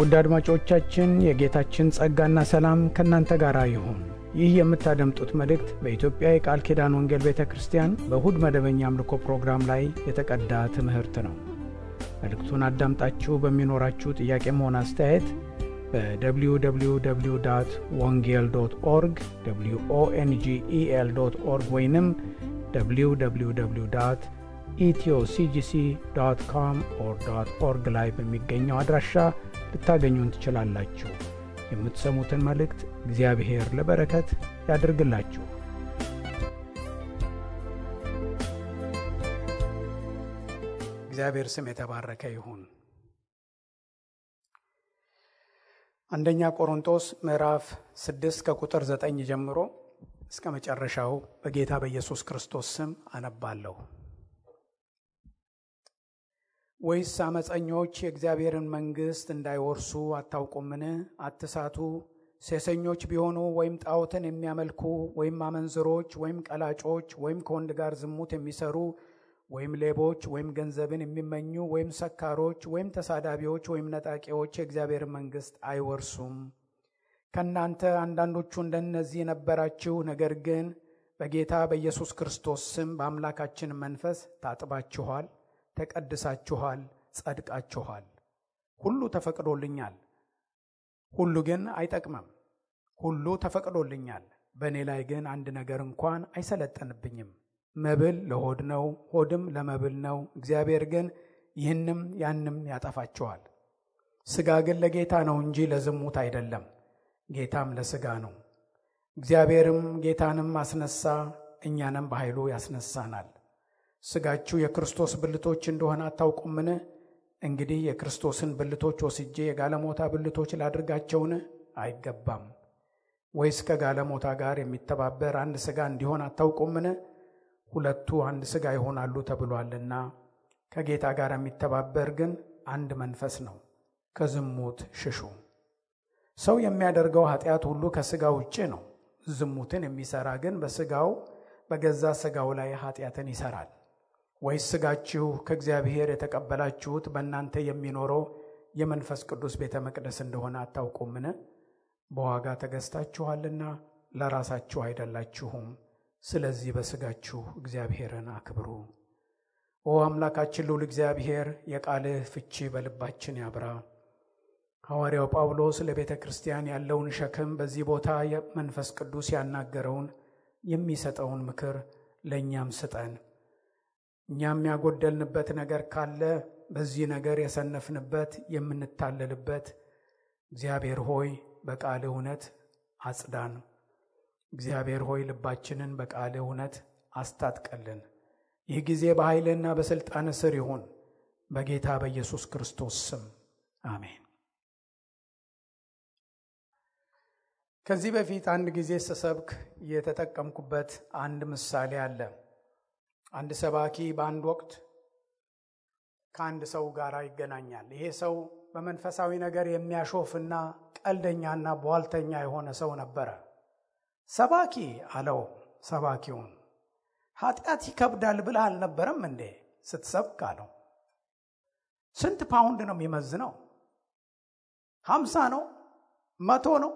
ውድ አድማጮቻችን የጌታችን ጸጋና ሰላም ከእናንተ ጋር ይሁን። ይህ የምታደምጡት መልእክት በኢትዮጵያ የቃል ኪዳን ወንጌል ቤተ ክርስቲያን በእሁድ መደበኛ አምልኮ ፕሮግራም ላይ የተቀዳ ትምህርት ነው። መልእክቱን አዳምጣችሁ በሚኖራችሁ ጥያቄም ሆነ አስተያየት በwww.wongel.org wongel.org ወይንም www.ethioCGC.com/org ላይ በሚገኘው አድራሻ ልታገኙን ትችላላችሁ። የምትሰሙትን መልእክት እግዚአብሔር ለበረከት ያድርግላችሁ። እግዚአብሔር ስም የተባረከ ይሁን። አንደኛ ቆሮንቶስ ምዕራፍ 6 ከቁጥር 9 ጀምሮ እስከ መጨረሻው በጌታ በኢየሱስ ክርስቶስ ስም አነባለሁ። ወይስ አመፀኞች የእግዚአብሔርን መንግሥት እንዳይወርሱ አታውቁምን? አትሳቱ። ሴሰኞች ቢሆኑ ወይም ጣዖትን የሚያመልኩ ወይም አመንዝሮች ወይም ቀላጮች ወይም ከወንድ ጋር ዝሙት የሚሰሩ ወይም ሌቦች ወይም ገንዘብን የሚመኙ ወይም ሰካሮች ወይም ተሳዳቢዎች ወይም ነጣቂዎች የእግዚአብሔርን መንግሥት አይወርሱም። ከእናንተ አንዳንዶቹ እንደነዚህ ነበራችሁ። ነገር ግን በጌታ በኢየሱስ ክርስቶስ ስም በአምላካችን መንፈስ ታጥባችኋል፣ ተቀድሳችኋል፣ ጸድቃችኋል። ሁሉ ተፈቅዶልኛል፣ ሁሉ ግን አይጠቅምም። ሁሉ ተፈቅዶልኛል፣ በእኔ ላይ ግን አንድ ነገር እንኳን አይሰለጠንብኝም። መብል ለሆድ ነው፣ ሆድም ለመብል ነው። እግዚአብሔር ግን ይህንም ያንም ያጠፋችኋል። ሥጋ ግን ለጌታ ነው እንጂ ለዝሙት አይደለም፣ ጌታም ለሥጋ ነው። እግዚአብሔርም ጌታንም አስነሳ፣ እኛንም በኃይሉ ያስነሳናል። ሥጋችሁ የክርስቶስ ብልቶች እንደሆነ አታውቁምን? እንግዲህ የክርስቶስን ብልቶች ወስጄ የጋለሞታ ብልቶች ላድርጋቸውን? አይገባም። ወይስ ከጋለሞታ ጋር የሚተባበር አንድ ሥጋ እንዲሆን አታውቁምን? ሁለቱ አንድ ሥጋ ይሆናሉ ተብሏልና። ከጌታ ጋር የሚተባበር ግን አንድ መንፈስ ነው። ከዝሙት ሽሹ። ሰው የሚያደርገው ኃጢአት ሁሉ ከሥጋ ውጭ ነው። ዝሙትን የሚሠራ ግን በገዛ ሥጋው ላይ ኃጢአትን ይሠራል። ወይስ ሥጋችሁ ከእግዚአብሔር የተቀበላችሁት በእናንተ የሚኖረው የመንፈስ ቅዱስ ቤተ መቅደስ እንደሆነ አታውቁምን? በዋጋ ተገዝታችኋልና ለራሳችሁ አይደላችሁም። ስለዚህ በሥጋችሁ እግዚአብሔርን አክብሩ። ኦ አምላካችን ልዑል እግዚአብሔር፣ የቃልህ ፍቺ በልባችን ያብራ። ሐዋርያው ጳውሎስ ለቤተ ክርስቲያን ያለውን ሸክም በዚህ ቦታ መንፈስ ቅዱስ ያናገረውን የሚሰጠውን ምክር ለእኛም ስጠን። እኛም ያጎደልንበት ነገር ካለ በዚህ ነገር የሰነፍንበት የምንታለልበት፣ እግዚአብሔር ሆይ በቃል እውነት አጽዳን። እግዚአብሔር ሆይ ልባችንን በቃል እውነት አስታጥቀልን። ይህ ጊዜ በኃይልና በሥልጣን ስር ይሁን፣ በጌታ በኢየሱስ ክርስቶስ ስም አሜን። ከዚህ በፊት አንድ ጊዜ ስሰብክ የተጠቀምኩበት አንድ ምሳሌ አለ። አንድ ሰባኪ በአንድ ወቅት ከአንድ ሰው ጋር ይገናኛል። ይሄ ሰው በመንፈሳዊ ነገር የሚያሾፍና ቀልደኛና ቧልተኛ የሆነ ሰው ነበረ። ሰባኪ አለው ሰባኪውን፣ ኃጢአት ይከብዳል ብለህ አልነበረም እንዴ ስትሰብክ አለው። ስንት ፓውንድ ነው የሚመዝነው? 50 ነው? 100 ነው?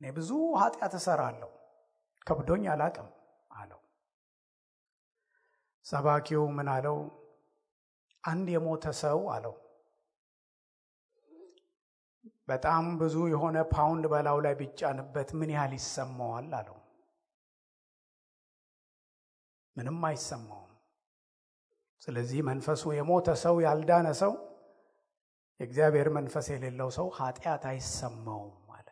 እኔ ብዙ ኃጢአት እሰራለሁ፣ ከብዶኝ አላቅም አለው። ሰባኪው ምን አለው? አንድ የሞተ ሰው አለው በጣም ብዙ የሆነ ፓውንድ በላዩ ላይ ቢጫንበት ምን ያህል ይሰማዋል አለው። ምንም አይሰማውም። ስለዚህ መንፈሱ የሞተ ሰው፣ ያልዳነ ሰው፣ የእግዚአብሔር መንፈስ የሌለው ሰው ኃጢአት አይሰማውም አለ።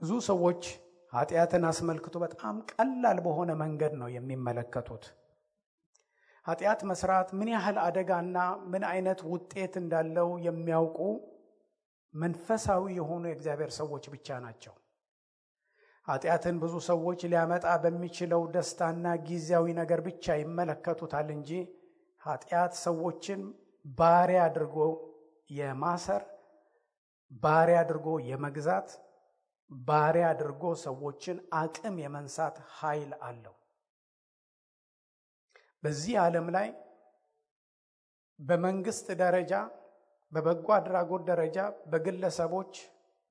ብዙ ሰዎች ኃጢአትን አስመልክቶ በጣም ቀላል በሆነ መንገድ ነው የሚመለከቱት። ኃጢአት መስራት ምን ያህል አደጋና ምን አይነት ውጤት እንዳለው የሚያውቁ መንፈሳዊ የሆኑ የእግዚአብሔር ሰዎች ብቻ ናቸው። ኃጢአትን ብዙ ሰዎች ሊያመጣ በሚችለው ደስታና ጊዜያዊ ነገር ብቻ ይመለከቱታል እንጂ ኃጢአት ሰዎችን ባሪያ አድርጎ የማሰር፣ ባሪያ አድርጎ የመግዛት፣ ባሪያ አድርጎ ሰዎችን አቅም የመንሳት ኃይል አለው። በዚህ ዓለም ላይ በመንግስት ደረጃ በበጎ አድራጎት ደረጃ፣ በግለሰቦች፣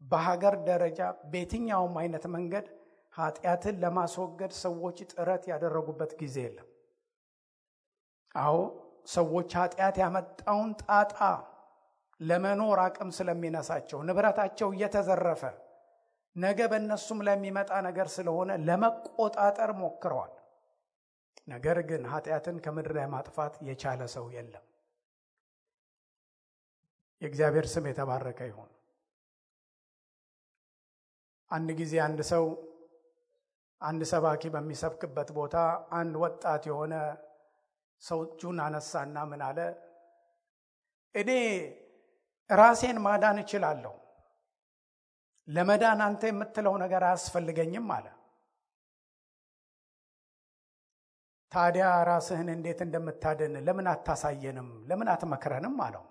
በሀገር ደረጃ በየትኛውም አይነት መንገድ ኃጢአትን ለማስወገድ ሰዎች ጥረት ያደረጉበት ጊዜ የለም። አዎ ሰዎች ኃጢአት ያመጣውን ጣጣ ለመኖር አቅም ስለሚነሳቸው ንብረታቸው እየተዘረፈ ነገ በእነሱም ለሚመጣ ነገር ስለሆነ ለመቆጣጠር ሞክረዋል። ነገር ግን ኃጢአትን ከምድር ላይ ማጥፋት የቻለ ሰው የለም። የእግዚአብሔር ስም የተባረከ ይሁን። አንድ ጊዜ አንድ ሰባኪ በሚሰብክበት ቦታ አንድ ወጣት የሆነ ሰው እጁን አነሳና ምን አለ? እኔ ራሴን ማዳን እችላለሁ፣ ለመዳን አንተ የምትለው ነገር አያስፈልገኝም አለ። ታዲያ ራስህን እንዴት እንደምታድን ለምን አታሳየንም? ለምን አትመክረንም አለው።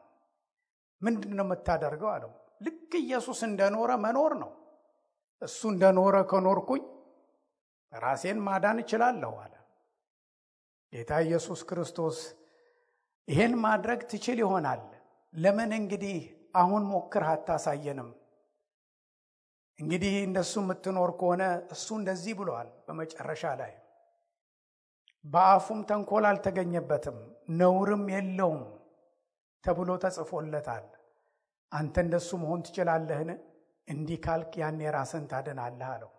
ምንድነው የምታደርገው አለው። ልክ ኢየሱስ እንደኖረ መኖር ነው። እሱ እንደኖረ ከኖርኩኝ ራሴን ማዳን እችላለሁ አለ። ጌታ ኢየሱስ ክርስቶስ ይሄን ማድረግ ትችል ይሆናል፣ ለምን እንግዲህ አሁን ሞክር አታሳየንም? እንግዲህ እንደሱ የምትኖር ከሆነ እሱ እንደዚህ ብሏል በመጨረሻ ላይ፣ በአፉም ተንኮል አልተገኘበትም ነውርም የለውም ተብሎ ተጽፎለታል። አንተ እንደሱ መሆን ትችላለህን? እንዲህ ካልክ ያኔ ራስን ታድናለህ አለው።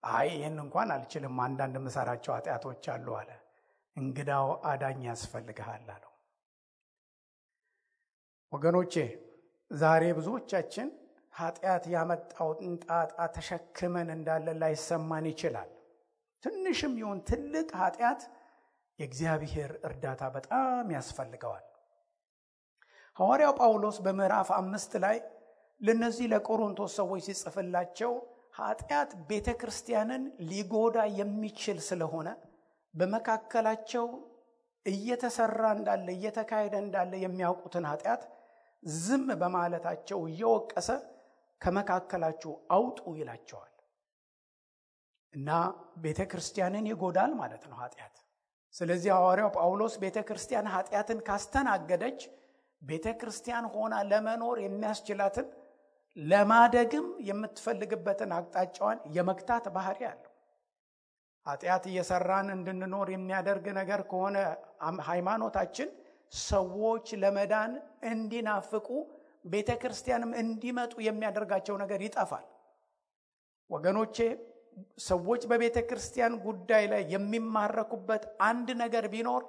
አይ ይህን እንኳን አልችልም፣ አንዳንድ ምሰራቸው ኃጢአቶች አሉ አለ። እንግዳው አዳኝ ያስፈልግሃል አለው። ወገኖቼ ዛሬ ብዙዎቻችን ኃጢአት ያመጣውን ጣጣ ተሸክመን እንዳለ ላይሰማን ይችላል። ትንሽም ይሁን ትልቅ ኃጢአት የእግዚአብሔር እርዳታ በጣም ያስፈልገዋል። ሐዋርያው ጳውሎስ በምዕራፍ 5 ላይ ለነዚህ ለቆሮንቶስ ሰዎች ሲጽፍላቸው ኃጢአት ቤተክርስቲያንን ሊጎዳ የሚችል ስለሆነ በመካከላቸው እየተሰራ እንዳለ እየተካሄደ እንዳለ የሚያውቁትን ኃጢአት ዝም በማለታቸው እየወቀሰ ከመካከላችሁ አውጡ ይላቸዋል። እና ቤተክርስቲያንን ይጎዳል ማለት ነው ኃጢአት። ስለዚህ ሐዋርያው ጳውሎስ ቤተክርስቲያን ኃጢአትን ካስተናገደች ቤተክርስቲያን ሆና ለመኖር የሚያስችላትን ለማደግም የምትፈልግበትን አቅጣጫዋን የመግታት ባህሪ አለው። ኃጢአት እየሰራን እንድንኖር የሚያደርግ ነገር ከሆነ ሃይማኖታችን ሰዎች ለመዳን እንዲናፍቁ ቤተክርስቲያንም እንዲመጡ የሚያደርጋቸው ነገር ይጠፋል። ወገኖቼ ሰዎች በቤተክርስቲያን ጉዳይ ላይ የሚማረኩበት አንድ ነገር ቢኖር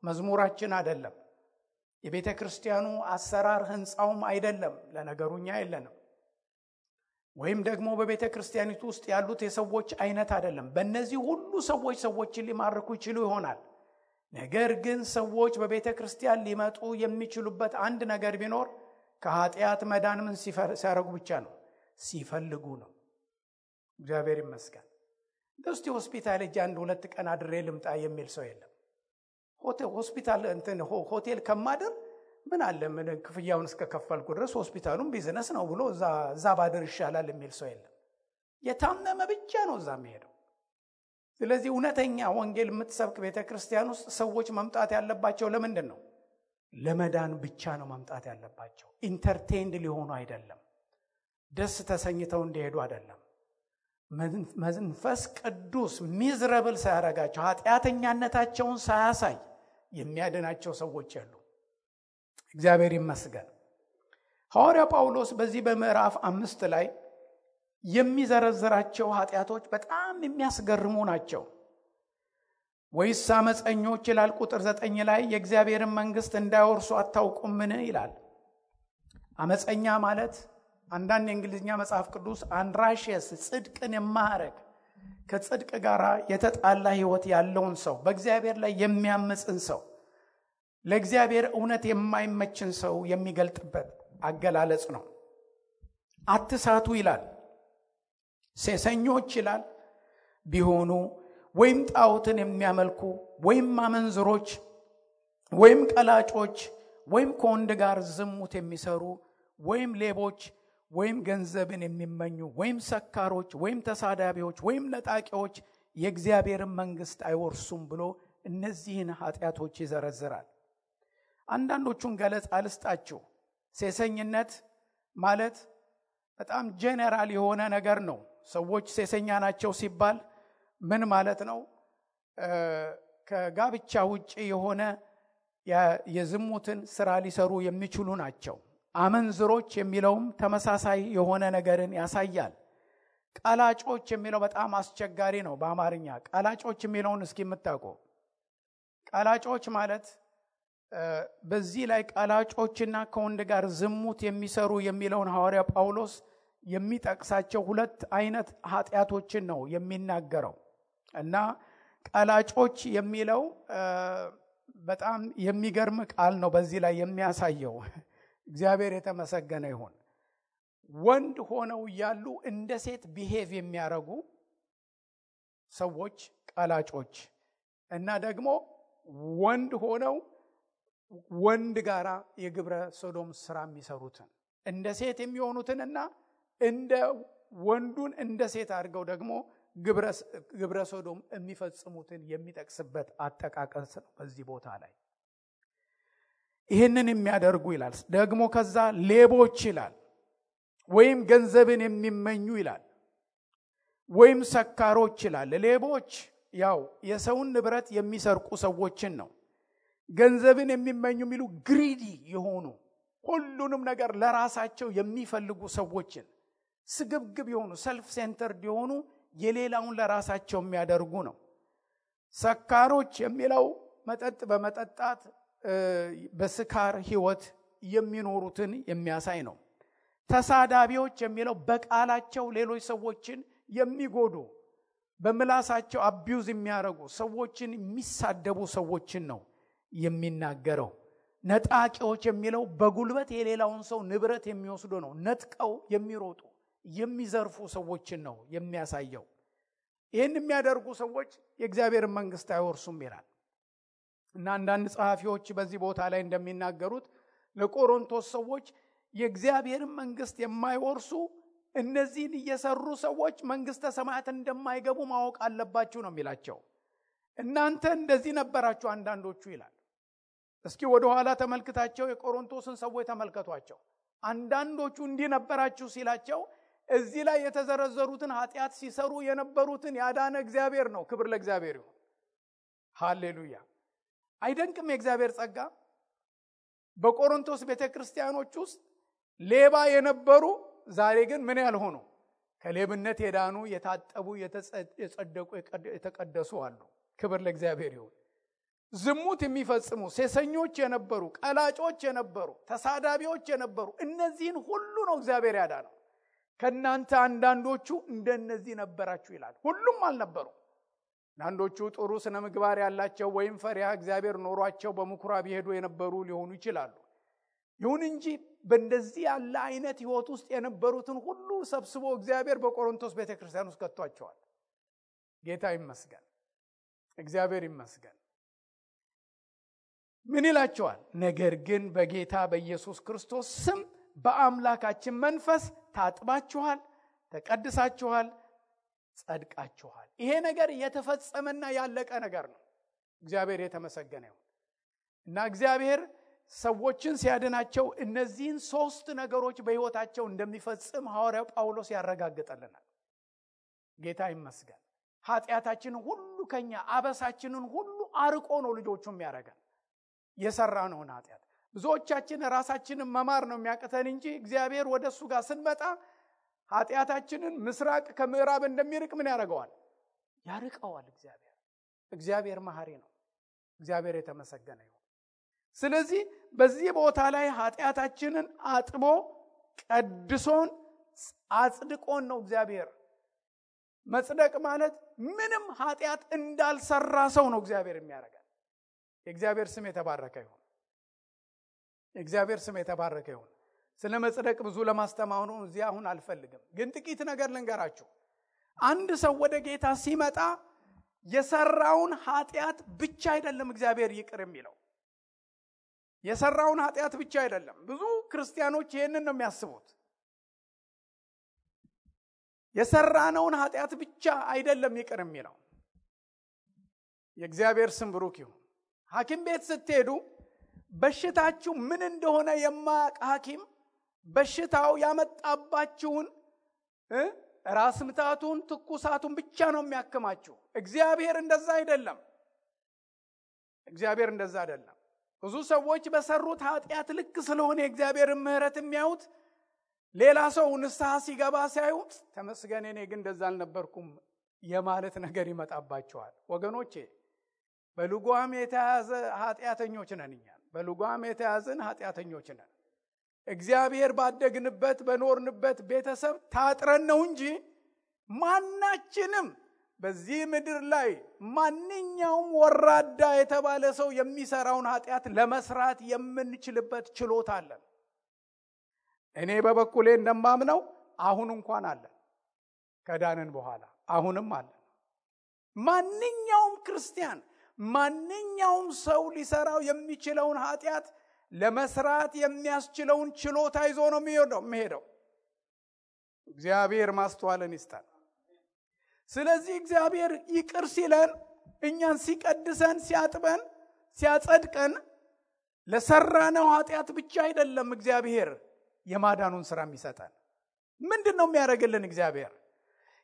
መዝሙራችን አይደለም፣ የቤተክርስቲያኑ አሰራር ህንጻውም አይደለም፣ ለነገሩኛ የለንም፣ ወይም ደግሞ በቤተክርስቲያኒቱ ውስጥ ያሉት የሰዎች አይነት አይደለም። በእነዚህ ሁሉ ሰዎችን ሊማርኩ ይችሉ ይሆናል። ነገር ግን ሰዎች በቤተክርስቲያን ሊመጡ የሚችሉበት አንድ ነገር ቢኖር ከኃጢአት መዳን ምን ሲያረጉ ብቻ ነው? ሲፈልጉ ነው። እግዚአብሔር ይመስገን። እስቲ ሆስፒታል እጅ 1-2 ቀን አድሬ ልምጣ የሚል ሰው የለም። ሆስፒታል ሆቴል ከማደር ምን አለ ምን ክፍያውን እስከከፈልኩ ድረስ ሆስፒታሉም ቢዝነስ ነው ብሎ እዛ ባደር ይሻላል የሚል ሰው የለም። የታመመ ብቻ ነው እዛ የሚሄደው። ስለዚህ እውነተኛ ወንጌል የምትሰብክ ቤተክርስቲያን ውስጥ ሰዎች መምጣት ያለባቸው ለምንድን ነው? ለመዳን ብቻ ነው መምጣት ያለባቸው። ኢንተርቴይንድ ሊሆኑ አይደለም፣ ደስ ተሰኝተው እንዲሄዱ አይደለም። መንፈስ ቅዱስ ሚዝረብል ሳያረጋቸው ኃጢአተኛነታቸውን ሳያሳይ የሚያድናቸው ሰዎች አሉ። እግዚአብሔር ይመስገን። ሐዋርያ ጳውሎስ በዚህ በምዕራፍ 5 ላይ የሚዘረዝራቸው ኃጢአቶች በጣም የሚያስገርሙ ናቸው። ወይስ አመፀኞች ይላል ቁጥር 9 ላይ የእግዚአብሔርን መንግስት እንዳይወርሱ አታውቁምን ይላል። አመፀኛ ማለት አንዳንድ የእንግሊዝኛ መጽሐፍ ቅዱስ አንራሽየስ ጽድቅን የማያረግ ከጽድቅ ጋር የተጣላ ህይወት ያለውን ሰው፣ በእግዚአብሔር ላይ የሚያምፅን ሰው፣ ለእግዚአብሔር እውነት የማይመችን ሰው የሚገልጥበት አገላለጽ ነው። አትሳቱ ይላል። ሴሰኞች ይላል ቢሆኑ ወይም ጣዖትን የሚያመልኩ ወይም አመንዝሮች ወይም ቀላጮች ወይም ከወንድ ጋር ዝሙት የሚሰሩ ወይም ሌቦች ወይም ገንዘብን የሚመኙ ወይም ሰካሮች ወይም ተሳዳቢዎች ወይም ነጣቂዎች የእግዚአብሔርን መንግስት አይወርሱም ብሎ እነዚህን ኃጢአቶች ይዘረዝራል። አንዳንዶቹን ገለጻ ልስጣችሁ። ሴሰኝነት ማለት በጣም ጄነራል የሆነ ነገር ነው። ሰዎች ሴሰኛ ናቸው ሲባል ምን ማለት ነው? ከጋብቻ ውጪ የሆነ የዝሙትን ስራ ሊሰሩ የሚችሉ ናቸው። አመንዝሮች የሚለውም ተመሳሳይ የሆነ ነገርን ያሳያል። ቀላጮች የሚለው በጣም አስቸጋሪ ነው በአማርኛ። ቀላጮች የሚለውን እስኪ የምታውቁ? ቀላጮች ማለት በዚህ ላይ ቀላጮችና ከወንድ ጋር ዝሙት የሚሰሩ የሚለውን ሐዋርያ ጳውሎስ የሚጠቅሳቸው ሁለት አይነት ኃጢአቶችን ነው የሚናገረው። እና ቀላጮች የሚለው በጣም የሚገርም ቃል ነው በዚህ ላይ የሚያሳየው። እግዚአብሔር የተመሰገነ ይሁን። ወንድ ሆነው ያሉ እንደ ሴት ቢሄቭ የሚያረጉ ሰዎች ቀላጮች፣ እና ደግሞ ወንድ ሆነው ወንድ ጋራ የግብረ ሶዶም ስራ የሚሰሩትን እንደ ሴት የሚሆኑትንና እንደ ወንዱን እንደ ሴት አድርገው ደግሞ ግብረ ሶዶም የሚፈጽሙትን የሚጠቅስበት አጠቃቀስ ነው በዚህ ቦታ ላይ። ይህንን የሚያደርጉ ይላል። ደግሞ ከዛ ሌቦች ይላል፣ ወይም ገንዘብን የሚመኙ ይላል፣ ወይም ሰካሮች ይላል። ሌቦች ያው የሰውን ንብረት የሚሰርቁ ሰዎችን ነው። ገንዘብን የሚመኙ የሚሉ ግሪዲ የሆኑ ሁሉንም ነገር ለራሳቸው የሚፈልጉ ሰዎችን፣ ስግብግብ የሆኑ ሰልፍ ሴንተርድ የሆኑ የሌላውን ለራሳቸው የሚያደርጉ ነው። ሰካሮች የሚለው መጠጥ በመጠጣት በስካር ህይወት የሚኖሩትን የሚያሳይ ነው። ተሳዳቢዎች የሚለው በቃላቸው ሌሎች ሰዎችን የሚጎዱ፣ በምላሳቸው አቢዩዝ የሚያደርጉ ሰዎችን የሚሳደቡ ሰዎችን ነው የሚናገረው። ነጣቂዎች የሚለው በጉልበት የሌላውን ሰው ንብረት የሚወስዱ ነው። ነጥቀው የሚሮጡ የሚዘርፉ ሰዎችን ነው የሚያሳየው። ይህን የሚያደርጉ ሰዎች የእግዚአብሔር መንግስት አይወርሱም ይላል። እና አንዳንድ ጸሐፊዎች በዚህ ቦታ ላይ እንደሚናገሩት ለቆሮንቶስ ሰዎች የእግዚአብሔርን መንግስት የማይወርሱ እነዚህን እየሰሩ ሰዎች መንግስተ ሰማያት እንደማይገቡ ማወቅ አለባችሁ ነው የሚላቸው። እናንተ እንደዚህ ነበራችሁ አንዳንዶቹ ይላል። እስኪ ወደ ኋላ ተመልክታቸው የቆሮንቶስን ሰዎች ተመልከቷቸው። አንዳንዶቹ እንዲህ ነበራችሁ ሲላቸው እዚህ ላይ የተዘረዘሩትን ኃጢአት ሲሰሩ የነበሩትን ያዳነ እግዚአብሔር ነው። ክብር ለእግዚአብሔር ይሁን። ሃሌሉያ። አይደንቅም የእግዚአብሔር ጸጋ? በቆሮንቶስ ቤተክርስቲያኖች ውስጥ ሌባ የነበሩ ዛሬ ግን ምን ያልሆኑ ከሌብነት የዳኑ የታጠቡ የጸደቁ የተቀደሱ አሉ። ክብር ለእግዚአብሔር ይሁን። ዝሙት የሚፈጽሙ ሴሰኞች የነበሩ፣ ቀላጮች የነበሩ፣ ተሳዳቢዎች የነበሩ እነዚህን ሁሉ ነው እግዚአብሔር ያዳነው። ከናንተ አንዳንዶቹ እንደነዚህ ነበራችሁ ይላል። ሁሉም አልነበሩ። አንዳንዶቹ ጥሩ ስነ ምግባር ያላቸው ወይም ፈሪሃ እግዚአብሔር ኖሯቸው በምኩራብ ይሄዱ የነበሩ ሊሆኑ ይችላሉ። ይሁን እንጂ በእንደዚህ ያለ አይነት ህይወት ውስጥ የነበሩትን ሁሉ ሰብስቦ እግዚአብሔር በቆሮንቶስ ቤተክርስቲያን ውስጥ ከቷቸዋል። ጌታ ይመስገን፣ እግዚአብሔር ይመስገን። ምን ይላቸዋል? ነገር ግን በጌታ በኢየሱስ ክርስቶስ ስም በአምላካችን መንፈስ ታጥባችኋል፣ ተቀድሳችኋል፣ ጸድቃችኋል። ይሄ ነገር የተፈጸመና ያለቀ ነገር ነው። እግዚአብሔር የተመሰገነ ይሁን። እና እግዚአብሔር ሰዎችን ሲያድናቸው እነዚህን ሶስት ነገሮች በህይወታቸው እንደሚፈጽም ሐዋርያው ጳውሎስ ያረጋግጠልናል። ጌታ ይመስገን። ኃጢአታችንን ሁሉ ከኛ አበሳችንን ሁሉ አርቆ ነው ልጆቹም ያረጋል። የሰራነውን ኃጢአት ብዙዎቻችን ራሳችንን መማር ነው የሚያቅተን እንጂ እግዚአብሔር ወደሱ ጋር ስንመጣ ኃጢአታችንን ምስራቅ ከምዕራብ እንደሚርቅ ምን ያደርገዋል? ያርቀዋል። እግዚአብሔር መሐሪ ነው። እግዚአብሔር የተመሰገነ ይሁን። ስለዚህ በዚህ ቦታ ላይ ኃጢአታችንን አጥቦ ቀድሶን አጽድቆን ነው እግዚአብሔር። መጽደቅ ማለት ምንም ኃጢአት እንዳልሰራ ሰው ነው እግዚአብሔር የሚያደርገን። የእግዚአብሔር ስም የተባረከ ይሁን። የእግዚአብሔር ስም የተባረከ ይሁን። ስለ መጽደቅ ብዙ ለማስተማሩ እዚህ አሁን አልፈልግም፣ ግን ጥቂት ነገር ልንገራችሁ። አንድ ሰው ወደ ጌታ ሲመጣ የሰራውን ኃጢአት ብቻ አይደለም እግዚአብሔር ይቅር የሚለው። የሰራውን ኃጢአት ብቻ አይደለም። ብዙ ክርስቲያኖች ይሄንን ነው የሚያስቡት። የሰራነውን ኃጢአት ብቻ አይደለም ይቅር የሚለው። የእግዚአብሔር ስም ብሩክ ይሁን። ሐኪም ቤት ስትሄዱ በሽታችሁ ምን እንደሆነ የማያውቅ ሐኪም በሽታው ያመጣባችሁን ራስ ምታቱን ትኩሳቱን ብቻ ነው የሚያክማችሁ። እግዚአብሔር እንደዛ አይደለም። እግዚአብሔር እንደዛ አይደለም። ብዙ ሰዎች በሰሩት ኃጢአት ልክ ስለሆነ የእግዚአብሔርን ምሕረት የሚያዩት ሌላ ሰው ንስሐ ሲገባ ሲያዩት ተመስገን እኔ ግን እንደዛ አልነበርኩም የማለት ነገር ይመጣባቸዋል። ወገኖቼ በልጓም የተያዘ ኃጢአተኞች ነን እኛ። በልጓም የተያዘን ኃጢአተኞች ነን። እግዚአብሔር ባደግንበት በኖርንበት ቤተሰብ ታጥረን ነው እንጂ ማናችንም በዚህ ምድር ላይ ማንኛውም ወራዳ የተባለ ሰው የሚሰራውን ኃጢአት ለመስራት የምንችልበት ችሎታ አለን። እኔ በበኩሌ እንደማምነው አሁን እንኳን አለን። ከዳንን በኋላ አሁንም አለን። ማንኛውም ክርስቲያን ማንኛውም ሰው ሊሰራው የሚችለውን ኃጢአት ለመስራት የሚያስችለውን ችሎታ ይዞ ነው የሚሄደው። እግዚአብሔር ማስተዋልን ይስጣል። ስለዚህ እግዚአብሔር ይቅር ሲለን እኛን ሲቀድሰን ሲያጥበን ሲያጸድቀን ለሰራነው ኃጢአት ብቻ አይደለም እግዚአብሔር የማዳኑን ሥራ የሚሰጠን። ምንድነው የሚያደርግልን እግዚአብሔር?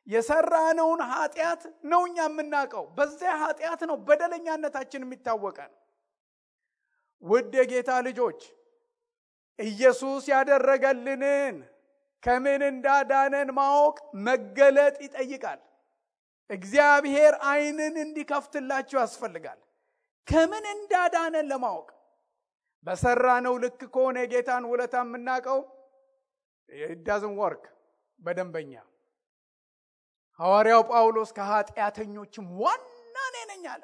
የሰራነውን ኃጢአት ነው እኛ የምናውቀው። በዚያ ኃጢአት ነው በደለኛነታችን የሚታወቀን። ውድ የጌታ ልጆች ኢየሱስ ያደረገልንን ከምን እንዳዳነን ማወቅ መገለጥ ይጠይቃል። እግዚአብሔር ዓይንን እንዲከፍትላችሁ ያስፈልጋል። ከምን እንዳዳነን ለማወቅ በሰራነው ልክ ከሆነ የጌታን ውለታ የምናውቀው it doesn't work በደንበኛ። ሐዋርያው ጳውሎስ ከኃጢአተኞችም ዋና ነኝ አለ።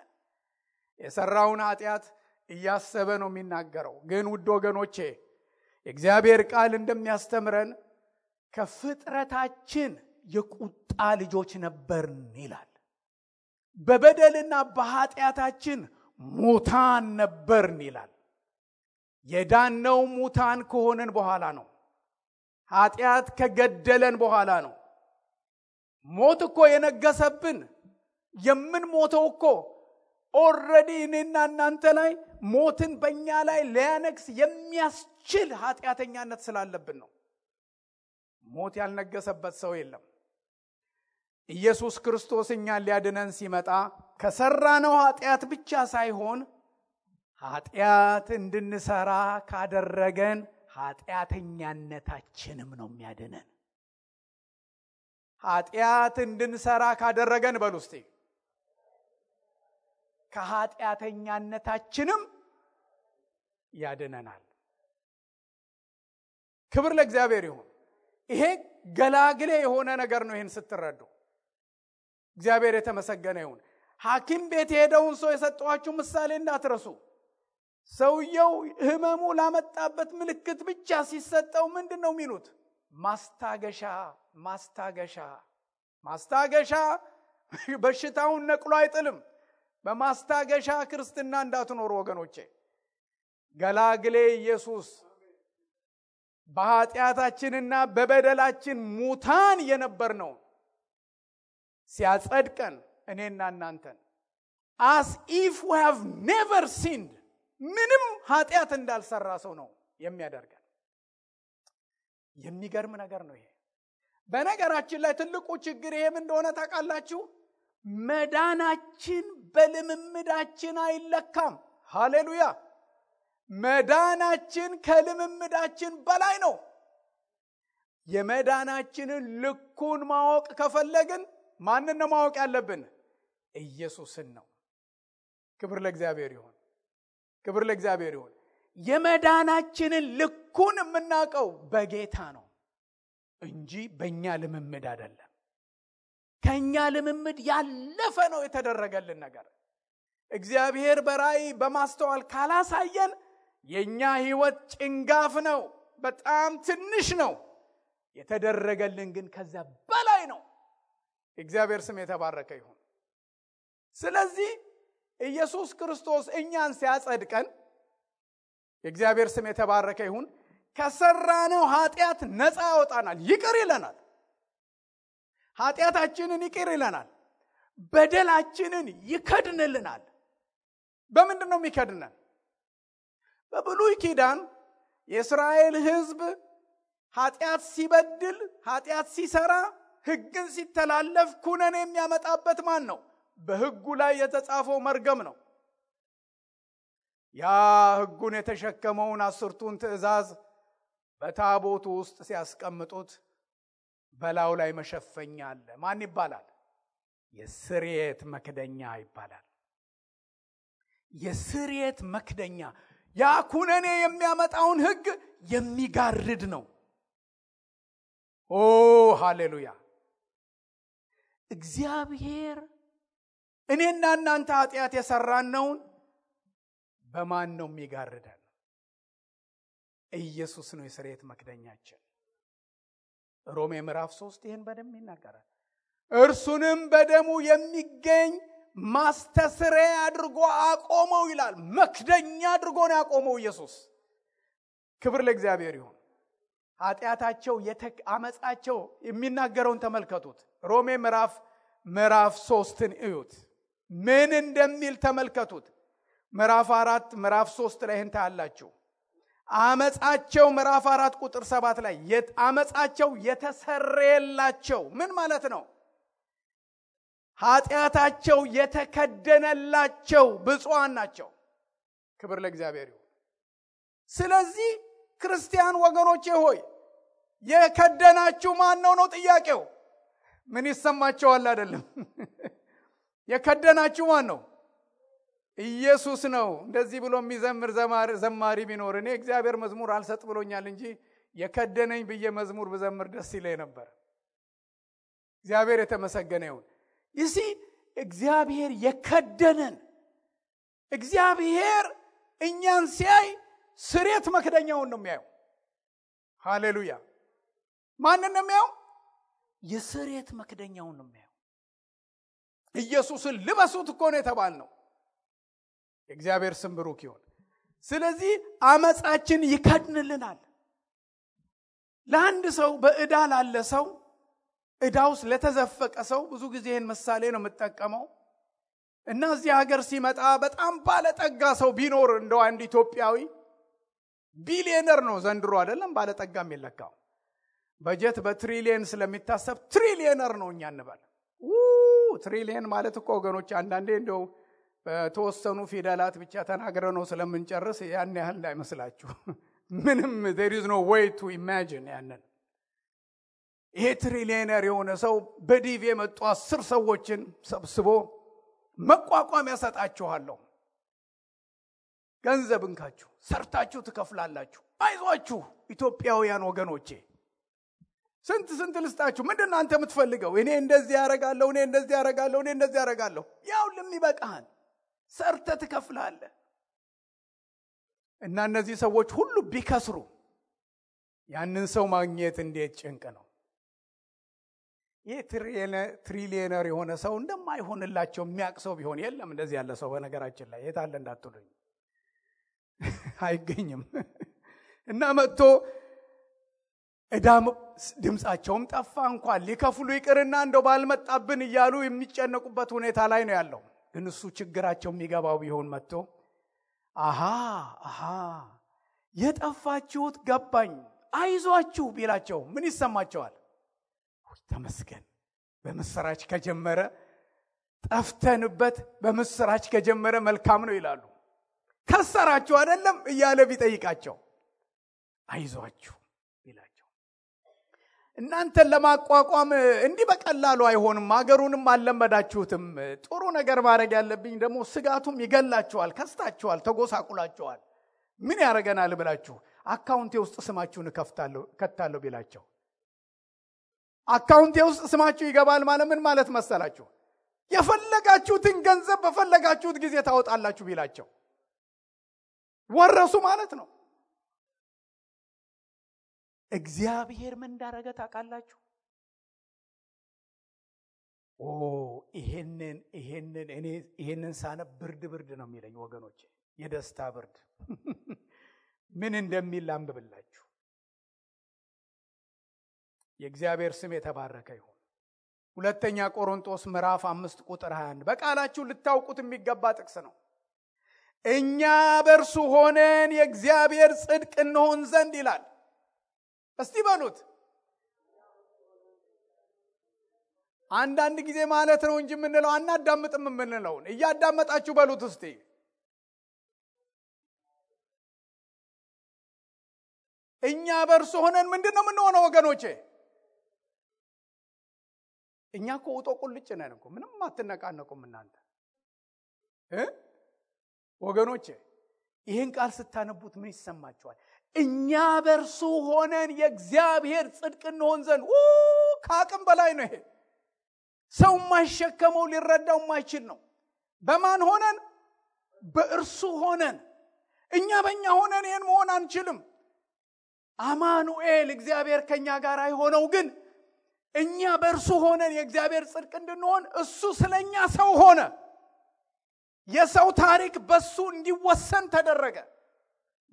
የሰራውን ኃጢአት እያሰበ ነው የሚናገረው። ግን ውድ ወገኖቼ የእግዚአብሔር ቃል እንደሚያስተምረን ከፍጥረታችን የቁጣ ልጆች ነበርን ይላል። በበደልና በኃጢአታችን ሙታን ነበርን ይላል። የዳነው ሙታን ከሆነን በኋላ ነው። ኃጢአት ከገደለን በኋላ ነው። ሞት እኮ የነገሰብን የምንሞተው እኮ ኦልሬዲ እኔና እናንተ ላይ ሞትን በእኛ ላይ ሊያነግስ የሚያስችል ኃጢአተኛነት ስላለብን ነው። ሞት ያልነገሰበት ሰው የለም። ኢየሱስ ክርስቶስ እኛን ሊያድነን ሲመጣ ከሰራነው ኃጢአት ብቻ ሳይሆን ኃጢአት እንድንሰራ ካደረገን ኃጢአተኛነታችንም ነው የሚያድነን። ኃጢአት እንድንሰራ ካደረገን በሉ እስቲ ከኃጢአተኛነታችንም ያድነናል። ክብር ለእግዚአብሔር ይሁን። ይሄ ገላግሌ የሆነ ነገር ነው። ይሄን ስትረዱ እግዚአብሔር የተመሰገነ ይሁን። ሐኪም ቤት የሄደውን ሰው የሰጠዋችሁ ምሳሌ እንዳትረሱ። ሰውየው ህመሙ ላመጣበት ምልክት ብቻ ሲሰጠው ምንድነው የሚሉት? ማስታገሻ ማስታገሻ ማስታገሻ። በሽታውን ነቅሎ አይጥልም። በማስታገሻ ክርስትና እንዳትኖሩ ወገኖቼ። ገላግሌ ኢየሱስ በኃጢአታችንና በበደላችን ሙታን የነበርነው ሲያጸድቀን እኔና እናንተን as if we have never sinned ምንም ኃጢአት እንዳልሰራ ሰው ነው የሚያደርገን። የሚገርም ነገር ነው ይሄ። በነገራችን ላይ ትልቁ ችግር ይሄም እንደሆነ ታውቃላችሁ። መዳናችን በልምምዳችን አይለካም። ሃሌሉያ! መዳናችን ከልምምዳችን በላይ ነው። የመዳናችንን ልኩን ማወቅ ከፈለግን ማንን ነው ማወቅ ያለብን? ኢየሱስን ነው። ክብር ለእግዚአብሔር ይሁን። ክብር ለእግዚአብሔር ይሁን። የመዳናችንን ልኩን የምናውቀው በጌታ ነው እንጂ በእኛ ልምምድ አይደለም። ከኛ ልምምድ ያለፈ ነው የተደረገልን ነገር። እግዚአብሔር በራእይ በማስተዋል ካላሳየን የኛ ህይወት ጭንጋፍ ነው፣ በጣም ትንሽ ነው። የተደረገልን ግን ከዛ በላይ ነው። እግዚአብሔር ስም የተባረከ ይሁን። ስለዚህ ኢየሱስ ክርስቶስ እኛን ሲያጸድቀን የእግዚአብሔር ስም የተባረከ ይሁን። ከሰራነው ኃጢአት ነፃ ያወጣናል፣ ይቅር ይለናል። ኃጢአታችንን ይቅር ይለናል። በደላችንን ይከድንልናል። በምንድን ነው የሚከድነን? በብሉይ ኪዳን የእስራኤል ሕዝብ ኃጢአት ሲበድል ኃጢአት ሲሰራ ሕግን ሲተላለፍ ኩነኔ የሚያመጣበት ማን ነው? በሕጉ ላይ የተጻፈው መርገም ነው። ያ ሕጉን የተሸከመውን 10ቱን ትእዛዝ በታቦቱ ውስጥ ሲያስቀምጡት በላዩ ላይ መሸፈኛ አለ። ማን ይባላል? የስርየት መክደኛ ይባላል። የስርየት መክደኛ ያ ኩነኔ የሚያመጣውን ሕግ የሚጋርድ ነው። ኦ ሃሌሉያ! እግዚአብሔር እኔና እናንተ ኃጢአት የሰራነውን በማን ነው የሚጋርደን? ኢየሱስ ነው የስርየት መክደኛችን። ሮሜ ምዕራፍ 3 ይህን በደንብ ይናገራል። እርሱንም በደሙ የሚገኝ ማስተስረያ አድርጎ አቆመው ይላል። መክደኛ አድርጎ ነው ያቆመው ኢየሱስ። ክብር ለእግዚአብሔር ይሁን። ኃጢአታቸው አመጻቸው የሚናገረውን ተመልከቱት። ሮሜ ምዕራፍ 3ን እዩት ምን እንደሚል ተመልከቱት። ምዕራፍ 4 ምዕራፍ 3 ላይ እንታ ያላችሁ አመጻቸው ምዕራፍ 4 ቁጥር 7 ላይ አመጻቸው የተሰረየላቸው ምን ማለት ነው? ኃጢአታቸው የተከደነላቸው ብፁዓን ናቸው። ክብር ለእግዚአብሔር ይሁን። ስለዚህ ክርስቲያን ወገኖቼ ሆይ የከደናችሁ ማን ነው ጥያቄው? ምን ይሰማቸዋል? አይደለም የከደናችሁ ማን ነው? ኢየሱስ ነው። እንደዚህ ብሎ የሚዘምር ዘማሪ ቢኖር እኔ እግዚአብሔር መዝሙር አልሰጥ ብሎኛል እንጂ የከደነኝ ብዬ መዝሙር ብዘምር ደስ ይለኝ ነበር። እግዚአብሔር የተመሰገነ ይሁን። ይሲ እግዚአብሔር የከደነን እግዚአብሔር እኛን ሲያይ ስርየት መክደኛውን ነው የሚያየው። ሃሌሉያ! ማንን ነው የሚያየው? የስርየት መክደኛውን ነው የሚያየው። ኢየሱስን ልበሱት እኮ ነው የተባልነው። እግዚአብሔር ስም ብሩክ ይሁን። ስለዚህ አመጻችን ይከድንልናል። ለአንድ ሰው በዕዳ ላለ ሰው ዕዳውስ ለተዘፈቀ ሰው ብዙ ጊዜ ይህን ምሳሌ ነው የምጠቀመው እና እዚህ ሀገር ሲመጣ በጣም ባለጠጋ ሰው ቢኖር እንደው አንድ ኢትዮጵያዊ ቢሊየነር ነው ዘንድሮ አይደለም ባለጠጋ የሚለካው በጀት በትሪሊየን ስለሚታሰብ ትሪሊየነር ነው እኛ እንበል። ትሪሊየን ማለት እኮ ወገኖች አንዳንዴ እንደው በተወሰኑ ፊደላት ብቻ ተናግረው ነው ስለምንጨርስ ያን ያህል እንዳይመስላችሁ። ምንም there is no way to imagine ያንን። ይሄ ትሪሊየነር የሆነ ሰው በዲቪ የመጡ 10 ሰዎችን ሰብስቦ መቋቋም ያሰጣችኋለሁ፣ ገንዘብ እንካችሁ ሰርታችሁ ትከፍላላችሁ፣ አይዟችሁ ኢትዮጵያውያን ወገኖቼ ስንት ልስጣችሁ፣ ምንድነው አንተ የምትፈልገው? እኔ እንደዚህ ያረጋለሁ፣ እኔ እንደዚህ ያረጋለሁ። ያው ለሚበቃህን ሰርተ ትከፍላለህ። እና እነዚህ ሰዎች ሁሉ ቢከስሩ ያንን ሰው ማግኘት እንዴት ጭንቅ ነው። ይሄ ትሪሊየነር የሆነ ሰው እንደማይሆንላቸው የሚያቅሰው ቢሆን የለም እንደዚህ ያለ ሰው በነገራችን ላይ የታለ እንዳትሉኝ አይገኝም። እና መጥቶ እዳም ድምጻቸውም ጠፋ እንኳን ሊከፍሉ ይቅርና እንደው ባልመጣብን እያሉ የሚጨነቁበት ሁኔታ ላይ ነው ያለው። ግን እሱ ችግራቸው የሚገባው ቢሆን መጥቶ አሃ የጠፋችሁት ገባኝ አይዟችሁ ቢላቸው ምን ይሰማቸዋል? ተመስገን በምስራች ከጀመረ ጠፍተንበት በምስራች ከጀመረ መልካም ነው ይላሉ። ከሰራችሁ አይደለም እያለ ቢጠይቃቸው አይዟችሁ ቢላቸው እናንተን ለማቋቋም እንዲህ በቀላሉ አይሆንም፣ ሀገሩንም አልለመዳችሁትም። ጥሩ ነገር ማድረግ ያለብኝ ደግሞ ስጋቱም ይገላችኋል፣ ከስታችኋል፣ ተጎሳቁላችኋል። ምን ያደርገናል ብላችሁ አካውንቴ ውስጥ ስማችሁን ከታለሁ ቢላቸው አካውንቴ ውስጥ ስማችሁ ይገባል ማለት ምን ማለት መሰላችሁ? የፈለጋችሁትን ገንዘብ በፈለጋችሁት ጊዜ ታወጣላችሁ ቢላቸው ወረሱ ማለት ነው። እግዚአብሔር ምን እንዳረገ ታውቃላችሁ? ይሄንን ሳነብ ብርድ ነው የሚለኝ ወገኖቼ፣ የደስታ ብርድ። ምን እንደሚል አንብብላችሁ። የእግዚአብሔር ስም የተባረከ ይሁን። ሁለተኛ ቆሮንቶስ ምዕራፍ 5 ቁጥር 21 በቃላችሁ ልታውቁት የሚገባ ጥቅስ ነው። እኛ በእርሱ ሆነን የእግዚአብሔር ጽድቅ እንሆን ዘንድ ይላል። እስቲ በሉት። አንዳንድ ጊዜ ማለት ነው እንጂ የምንለው አናዳምጥም የምንለውን እያዳመጣችሁ በሉት እስቲ። እኛ በእርሱ ሆነን ምንድነው የምንሆነው ወገኖቼ? እኛ እኮ ውጦ ቁልጭ ነን እኮ፣ ምንም አትነቃነቁም እናንተ ወገኖቼ። ይህን ቃል ስታነቡት ምን ይሰማችኋል? እኛ በእርሱ ሆነን የእግዚአብሔር ጽድቅ እንሆን ዘንድ። ከአቅም በላይ ነው ይሄ። ሰው ማይሸከመው ሊረዳው ማይችል ነው። በማን ሆነን? በእርሱ ሆነን። እኛ በእኛ ሆነን ይህን መሆን አንችልም። አማኑኤል እግዚአብሔር ከኛ ጋር አይሆነው፣ ግን እኛ በእርሱ ሆነን የእግዚአብሔር ጽድቅ እንድንሆን እሱ ስለኛ ሰው ሆነ። የሰው ታሪክ በሱ እንዲወሰን ተደረገ።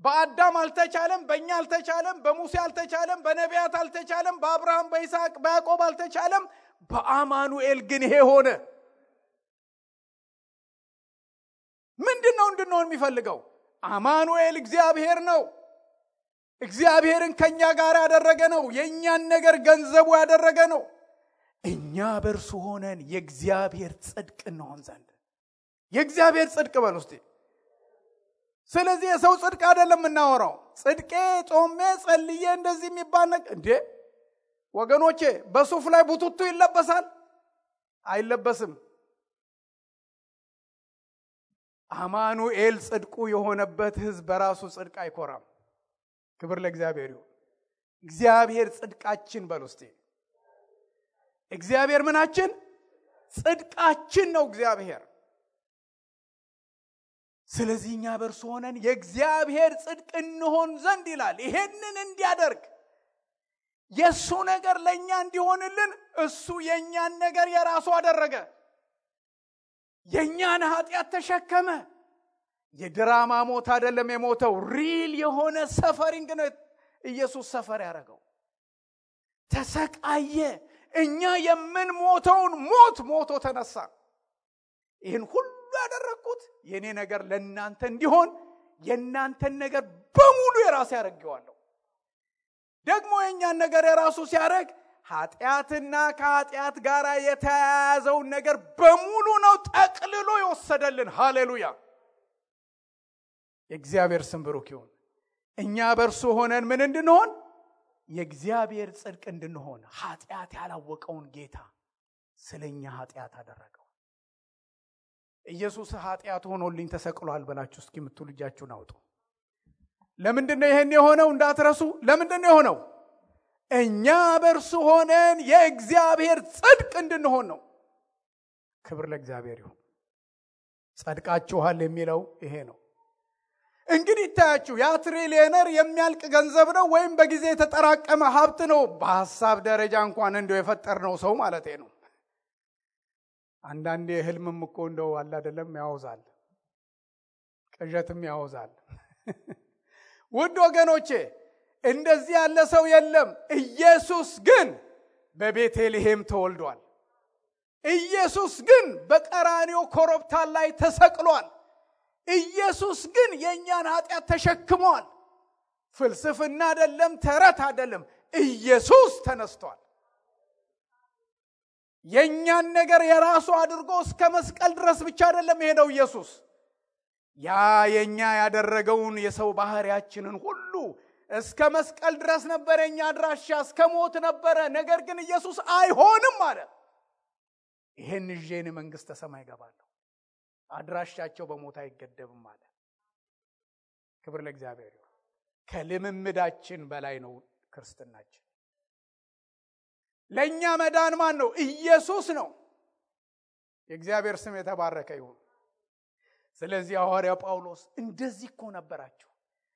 በአዳም አልተቻለም፣ በእኛ አልተቻለም፣ በሙሴ አልተቻለም፣ በነቢያት አልተቻለም፣ በአብርሃም፣ በይስሐቅ፣ በያዕቆብ አልተቻለም። በአማኑኤል ግን ይሄ ሆነ። ምንድነው እንድንሆን የሚፈልገው? አማኑኤል እግዚአብሔር ነው። እግዚአብሔርን ከኛ ጋር ያደረገ ነው። የኛን ነገር ገንዘቡ ያደረገ ነው። እኛ በእርሱ ሆነን የእግዚአብሔር ጽድቅ እንሆን ዘንድ። የእግዚአብሔር ጽድቅ በል ውስጥ። ስለዚህ የሰው ጽድቅ አይደለም እናወራው። ጽድቄ ጾሜ ጸልዬ እንደዚህ የሚባል ነገር እንዴ ወገኖቼ፣ በሱፍ ላይ ቡቱቱ ይለበሳል? አይለበስም። አማኑኤል ጽድቁ የሆነበት ሕዝብ በራሱ ጽድቅ አይኮራም። ክብር ለእግዚአብሔር ይሁን። እግዚአብሔር ጽድቃችን በል ውስጥ። እግዚአብሔር ምናችን? ጽድቃችን ነው እግዚአብሔር። ስለዚህ እኛ በእርሱ ሆነን የእግዚአብሔር ጽድቅ እንሆን ዘንድ ይላል። ይሄንን እንዲያደርግ የእሱ ነገር ለእኛ እንዲሆንልን እሱ የእኛን ነገር የራሱ አደረገ። የእኛን ኃጢአት ተሸከመ። የድራማ ሞት አይደለም የሞተው፣ ሪል የሆነ ሰፈሪንግ ነው ኢየሱስ ሰፈር ያደረገው። ተሰቃየ። እኛ የምንሞተውን ሞቶ ተነሳ። ይህን ሁሉ ያደረኩት የኔ ነገር ለእናንተ እንዲሆን የእናንተን ነገር በሙሉ የራሱ ያደርገዋለሁ። ደግሞ የእኛን ነገር የራሱ ሲያደርግ ኃጢአትና ከኃጢአት ጋር የተያያዘውን ነገር በሙሉ ነው ጠቅልሎ የወሰደልን። ሃሌሉያ! የእግዚአብሔር ስም ብሩክ ይሁን። እኛ በእርሱ ሆነን ምን እንድንሆን? የእግዚአብሔር ጽድቅ እንድንሆን። ኃጢአት ያላወቀውን ጌታ ስለኛ ኃጢአት አደረገው። ኢየሱስ ኃጢአት ሆኖልኝ ተሰቅሏል ብላችሁ እስኪ የምትሉ እጃችሁን አውጡ። ለምንድነው ይሄን የሆነው? እንዳትረሱ። ለምንድነው የሆነው? እኛ በእርሱ ሆነን የእግዚአብሔር ጽድቅ እንድንሆን ነው። ክብር ለእግዚአብሔር ይሁን። ጸድቃችኋል የሚለው ይሄ ነው። እንግዲህ ታያችሁ፣ ያ ትሪሊየነር የሚያልቅ ገንዘብ ነው ወይም በጊዜ የተጠራቀመ ሀብት ነው? በሐሳብ ደረጃ እንኳን እንደው የፈጠርነው ሰው ማለት ነው። አንዳንዴ ህልምም እኮ እንደው አለ አይደለም ያወዛል፣ ቅዠትም ያወዛል። ውድ ወገኖቼ እንደዚህ ያለ ሰው የለም። ኢየሱስ ግን በቤተልሔም ተወልዷል። ኢየሱስ ግን በቀራንዮ ኮረብታ ላይ ተሰቅሏል። ኢየሱስ ግን የኛን ኃጢአት ተሸክሟል። ፍልስፍና አይደለም፣ ተረት አይደለም። ኢየሱስ ተነስቷል። የኛን ነገር የራሱ አድርጎ እስከ መስቀል ድረስ ብቻ አይደለም የሄደው ኢየሱስ። ያ የኛ ያደረገውን የሰው ባህሪያችንን ሁሉ እስከ መስቀል ድረስ ነበር የኛ አድራሻ፣ እስከ ሞት ነበረ። ነገር ግን ኢየሱስ አይሆንም አለ። ይሄን ይዤን መንግስተ ሰማይ ገባለሁ፣ አድራሻቸው በሞት አይገደብም አለ። ክብር ለእግዚአብሔር ይሁን። ከልምምዳችን በላይ ነው ክርስትናችን። ለኛ መዳን ማን ነው? ኢየሱስ ነው። የእግዚአብሔር ስም የተባረከ ይሁን። ስለዚህ ሐዋርያው ጳውሎስ እንደዚህ እኮ ነበራችሁ፣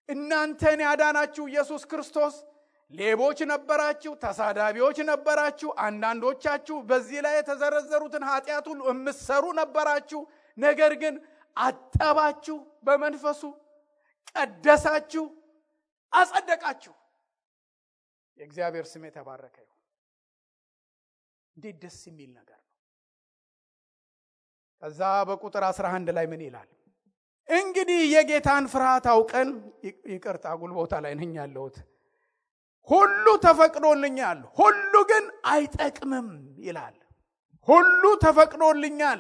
እናንተን ያዳናችሁ ኢየሱስ ክርስቶስ ሌቦች ነበራችሁ፣ ተሳዳቢዎች ነበራችሁ፣ አንዳንዶቻችሁ በዚህ ላይ የተዘረዘሩትን ኃጢአት ሁሉ የምትሰሩ ነበራችሁ። ነገር ግን አጠባችሁ፣ በመንፈሱ ቀደሳችሁ፣ አጸደቃችሁ። የእግዚአብሔር ስም የተባረከ ይሁን። እንዴት ደስ የሚል ነገር ነው። ከዛ በቁጥር 11 ላይ ምን ይላል? እንግዲህ የጌታን ፍርሃት አውቀን ይቅርታ ጉልቦታ ላይ ነኝ ያለሁት ሁሉ ተፈቅዶልኛል ሁሉ ግን አይጠቅምም ይላል። ሁሉ ተፈቅዶልኛል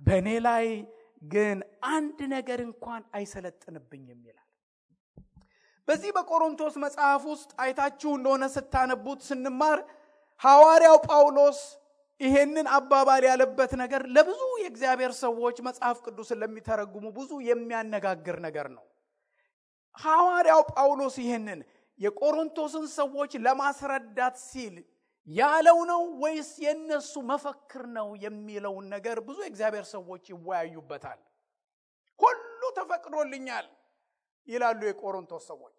በእኔ ላይ ግን አንድ ነገር እንኳን አይሰለጥንብኝም ይላል። በዚህ በቆሮንቶስ መጽሐፍ ውስጥ አይታችሁ እንደሆነ ስታነቡት ስንማር ሐዋርያው ጳውሎስ ይሄንን አባባል ያለበት ነገር ለብዙ የእግዚአብሔር ሰዎች መጽሐፍ ቅዱስን ለሚተረጉሙ ብዙ የሚያነጋግር ነገር ነው። ሐዋርያው ጳውሎስ ይሄንን የቆሮንቶስን ሰዎች ለማስረዳት ሲል ያለው ነው ወይስ የነሱ መፈክር ነው የሚለውን ነገር ብዙ የእግዚአብሔር ሰዎች ይወያዩበታል። ሁሉ ተፈቅዶልኛል ይላሉ የቆሮንቶስ ሰዎች።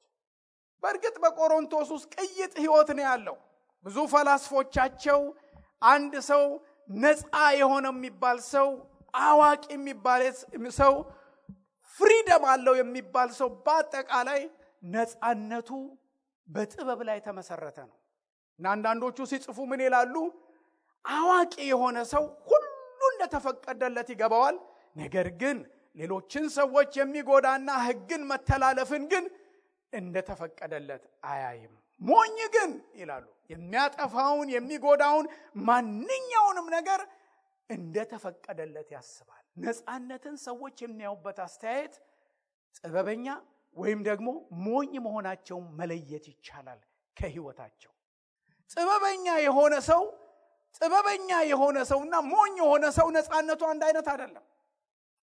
በእርግጥ በቆሮንቶስ ውስጥ ቅይጥ ህይወት ነው ያለው። ብዙ ፈላስፎቻቸው አንድ ሰው ነፃ የሆነ የሚባል ሰው አዋቂ የሚባል ሰው ፍሪደም አለው የሚባል ሰው በአጠቃላይ ነፃነቱ በጥበብ ላይ ተመሰረተ ነው። እና አንዳንዶቹ ሲጽፉ ምን ይላሉ? አዋቂ የሆነ ሰው ሁሉ እንደተፈቀደለት ይገባዋል፣ ነገር ግን ሌሎችን ሰዎች የሚጎዳና ህግን መተላለፍን ግን እንደተፈቀደለት አያይም። ሞኝ ግን ይላሉ የሚያጠፋውን የሚጎዳውን ማንኛውንም ነገር እንደተፈቀደለት ያስባል። ነፃነትን ሰዎች የሚያዩበት አስተያየት ጥበበኛ ወይም ደግሞ ሞኝ መሆናቸውን መለየት ይቻላል ከህይወታቸው። ጥበበኛ የሆነ ሰውና ሞኝ የሆነ ሰው ነፃነቱ አንድ አይነት አይደለም።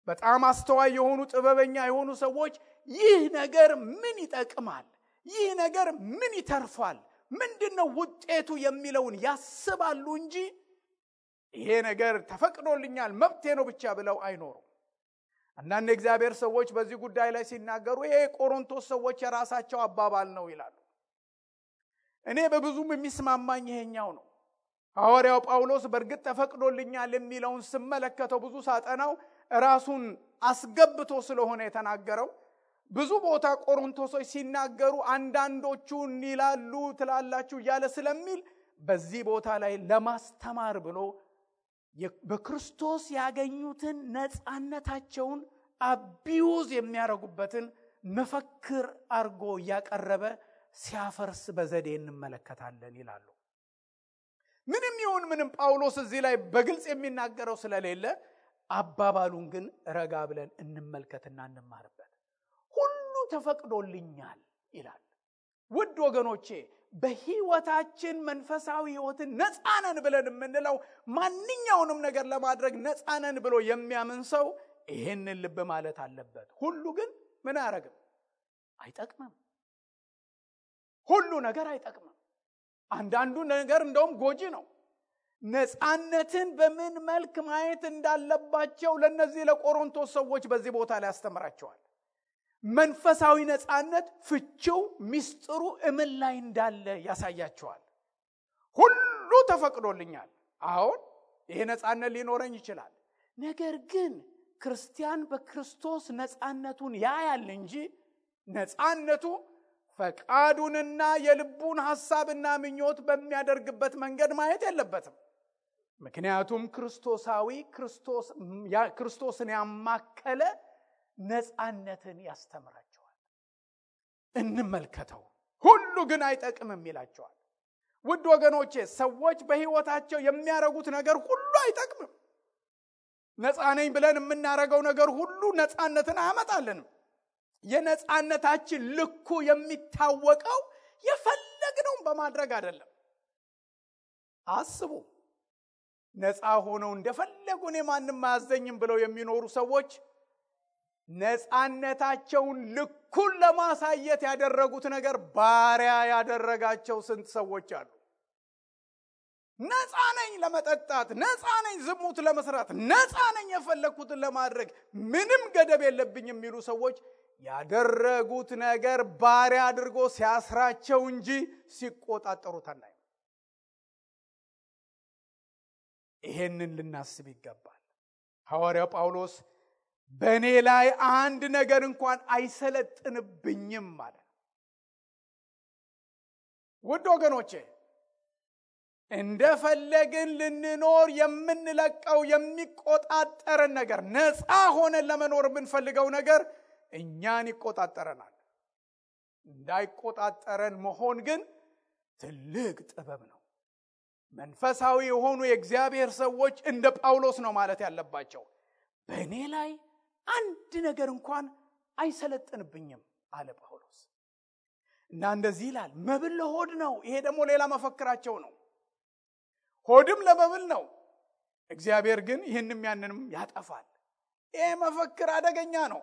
በጣም አስተዋይ የሆኑ ጥበበኛ የሆኑ ሰዎች ይህ ነገር ምን ይጠቅማል፣ ይህ ነገር ምን ይተርፋል፣ ምንድነው ውጤቱ የሚለውን ያስባሉ እንጂ ይሄ ነገር ተፈቅዶልኛል መብቴ ነው ብቻ ብለው አይኖሩም። አንዳንድ እግዚአብሔር ሰዎች በዚህ ጉዳይ ላይ ሲናገሩ ይሄ ቆሮንቶስ ሰዎች የራሳቸው አባባል ነው ይላሉ። እኔ በብዙም የሚስማማኝ ይሄኛው ነው። ሐዋርያው ጳውሎስ በእርግጥ ተፈቅዶልኛል የሚለውን ስመለከተው ብዙ ሳጠናው ራሱን አስገብቶ ስለሆነ የተናገረው ብዙ ቦታ ቆሮንቶሶች ሲናገሩ አንዳንዶቹ ይላሉ ትላላችሁ እያለ ስለሚል በዚህ ቦታ ላይ ለማስተማር ብሎ በክርስቶስ ያገኙትን ነፃነታቸውን አቢዩዝ የሚያረጉበትን መፈክር አርጎ ያቀረበ ሲያፈርስ በዘዴ እንመለከታለን ይላሉ። ምንም ይሁን ምንም ጳውሎስ እዚህ ላይ በግልጽ የሚናገረው ስለሌለ አባባሉን ግን ረጋ ብለን እንመልከትና እንማርበት። ሁሉ ተፈቅዶልኛል ይላል። ውድ ወገኖቼ በህይወታችን መንፈሳዊ ህይወትን ነፃነን ብለን የምንለው ማንኛውንም ነገር ለማድረግ ነፃነን ብሎ የሚያምን ሰው ይሄንን ልብ ማለት አለበት። ሁሉ ግን ምን አያረግም? አይጠቅምም። ሁሉ ነገር አይጠቅምም። አንዳንዱ ነገር እንደውም ጎጂ ነው። ነፃነትን በምን መልክ ማየት እንዳለባቸው ለነዚህ ለቆሮንቶስ ሰዎች በዚህ ቦታ ላይ ያስተምራቸዋል። መንፈሳዊ ነፃነት ፍቺው ሚስጥሩ እምን ላይ እንዳለ ያሳያቸዋል። ሁሉ ተፈቅዶልኛል። አሁን ይሄ ነፃነት ሊኖረኝ ይችላል። ነገር ግን ክርስቲያን በክርስቶስ ነፃነቱን ያያል እንጂ ነፃነቱ ፈቃዱንና የልቡን ሐሳብና ምኞት በሚያደርግበት መንገድ ማየት የለበትም። ምክንያቱም ክርስቶስን ያማከለ ነፃነትን ያስተምራቸዋል። እንመልከተው። ሁሉ ግን አይጠቅምም ይላቸዋል። ውድ ወገኖቼ ሰዎች በህይወታቸው የሚያረጉት ነገር ሁሉ አይጠቅምም። ነፃ ነኝ ብለን የምናረገው ነገር ሁሉ ነፃነትን አያመጣልንም። የነፃነታችን ልኩ የሚታወቀው የፈለግነውን በማድረግ አይደለም። አስቡ፣ ነፃ ሆነው እንደፈለጉ እኔ ማንም አያዘኝም ብለው የሚኖሩ ሰዎች ነፃነታቸውን ልኩን ለማሳየት ያደረጉት ነገር ባሪያ ያደረጋቸው ስንት ሰዎች አሉ። ነፃ ነኝ ለመጠጣት፣ ነፃ ነኝ ዝሙት ለመስራት፣ ነፃ ነኝ የፈለኩትን ለማድረግ፣ ምንም ገደብ የለብኝ የሚሉ ሰዎች ያደረጉት ነገር ባሪያ አድርጎ ሲያስራቸው እንጂ ሲቆጣጠሩት አናይም። ይሄንን ልናስብ ይገባል። ሐዋርያው ጳውሎስ በእኔ ላይ አንድ ነገር እንኳን አይሰለጥንብኝም ማለት። ውድ ወገኖቼ እንደፈለግን ልንኖር የምንለቀው የሚቆጣጠረን ነገር፣ ነፃ ሆነን ለመኖር የምንፈልገው ነገር እኛን ይቆጣጠረናል። እንዳይቆጣጠረን መሆን ግን ትልቅ ጥበብ ነው። መንፈሳዊ የሆኑ የእግዚአብሔር ሰዎች እንደ ጳውሎስ ነው ማለት ያለባቸው። በእኔ ላይ አንድ ነገር እንኳን አይሰለጥንብኝም አለ ጳውሎስ። እና እንደዚህ ይላል፣ መብል ለሆድ ነው። ይሄ ደግሞ ሌላ መፈክራቸው ነው። ሆድም ለመብል ነው፣ እግዚአብሔር ግን ይህንም ያንንም ያጠፋል። ይሄ መፈክር አደገኛ ነው።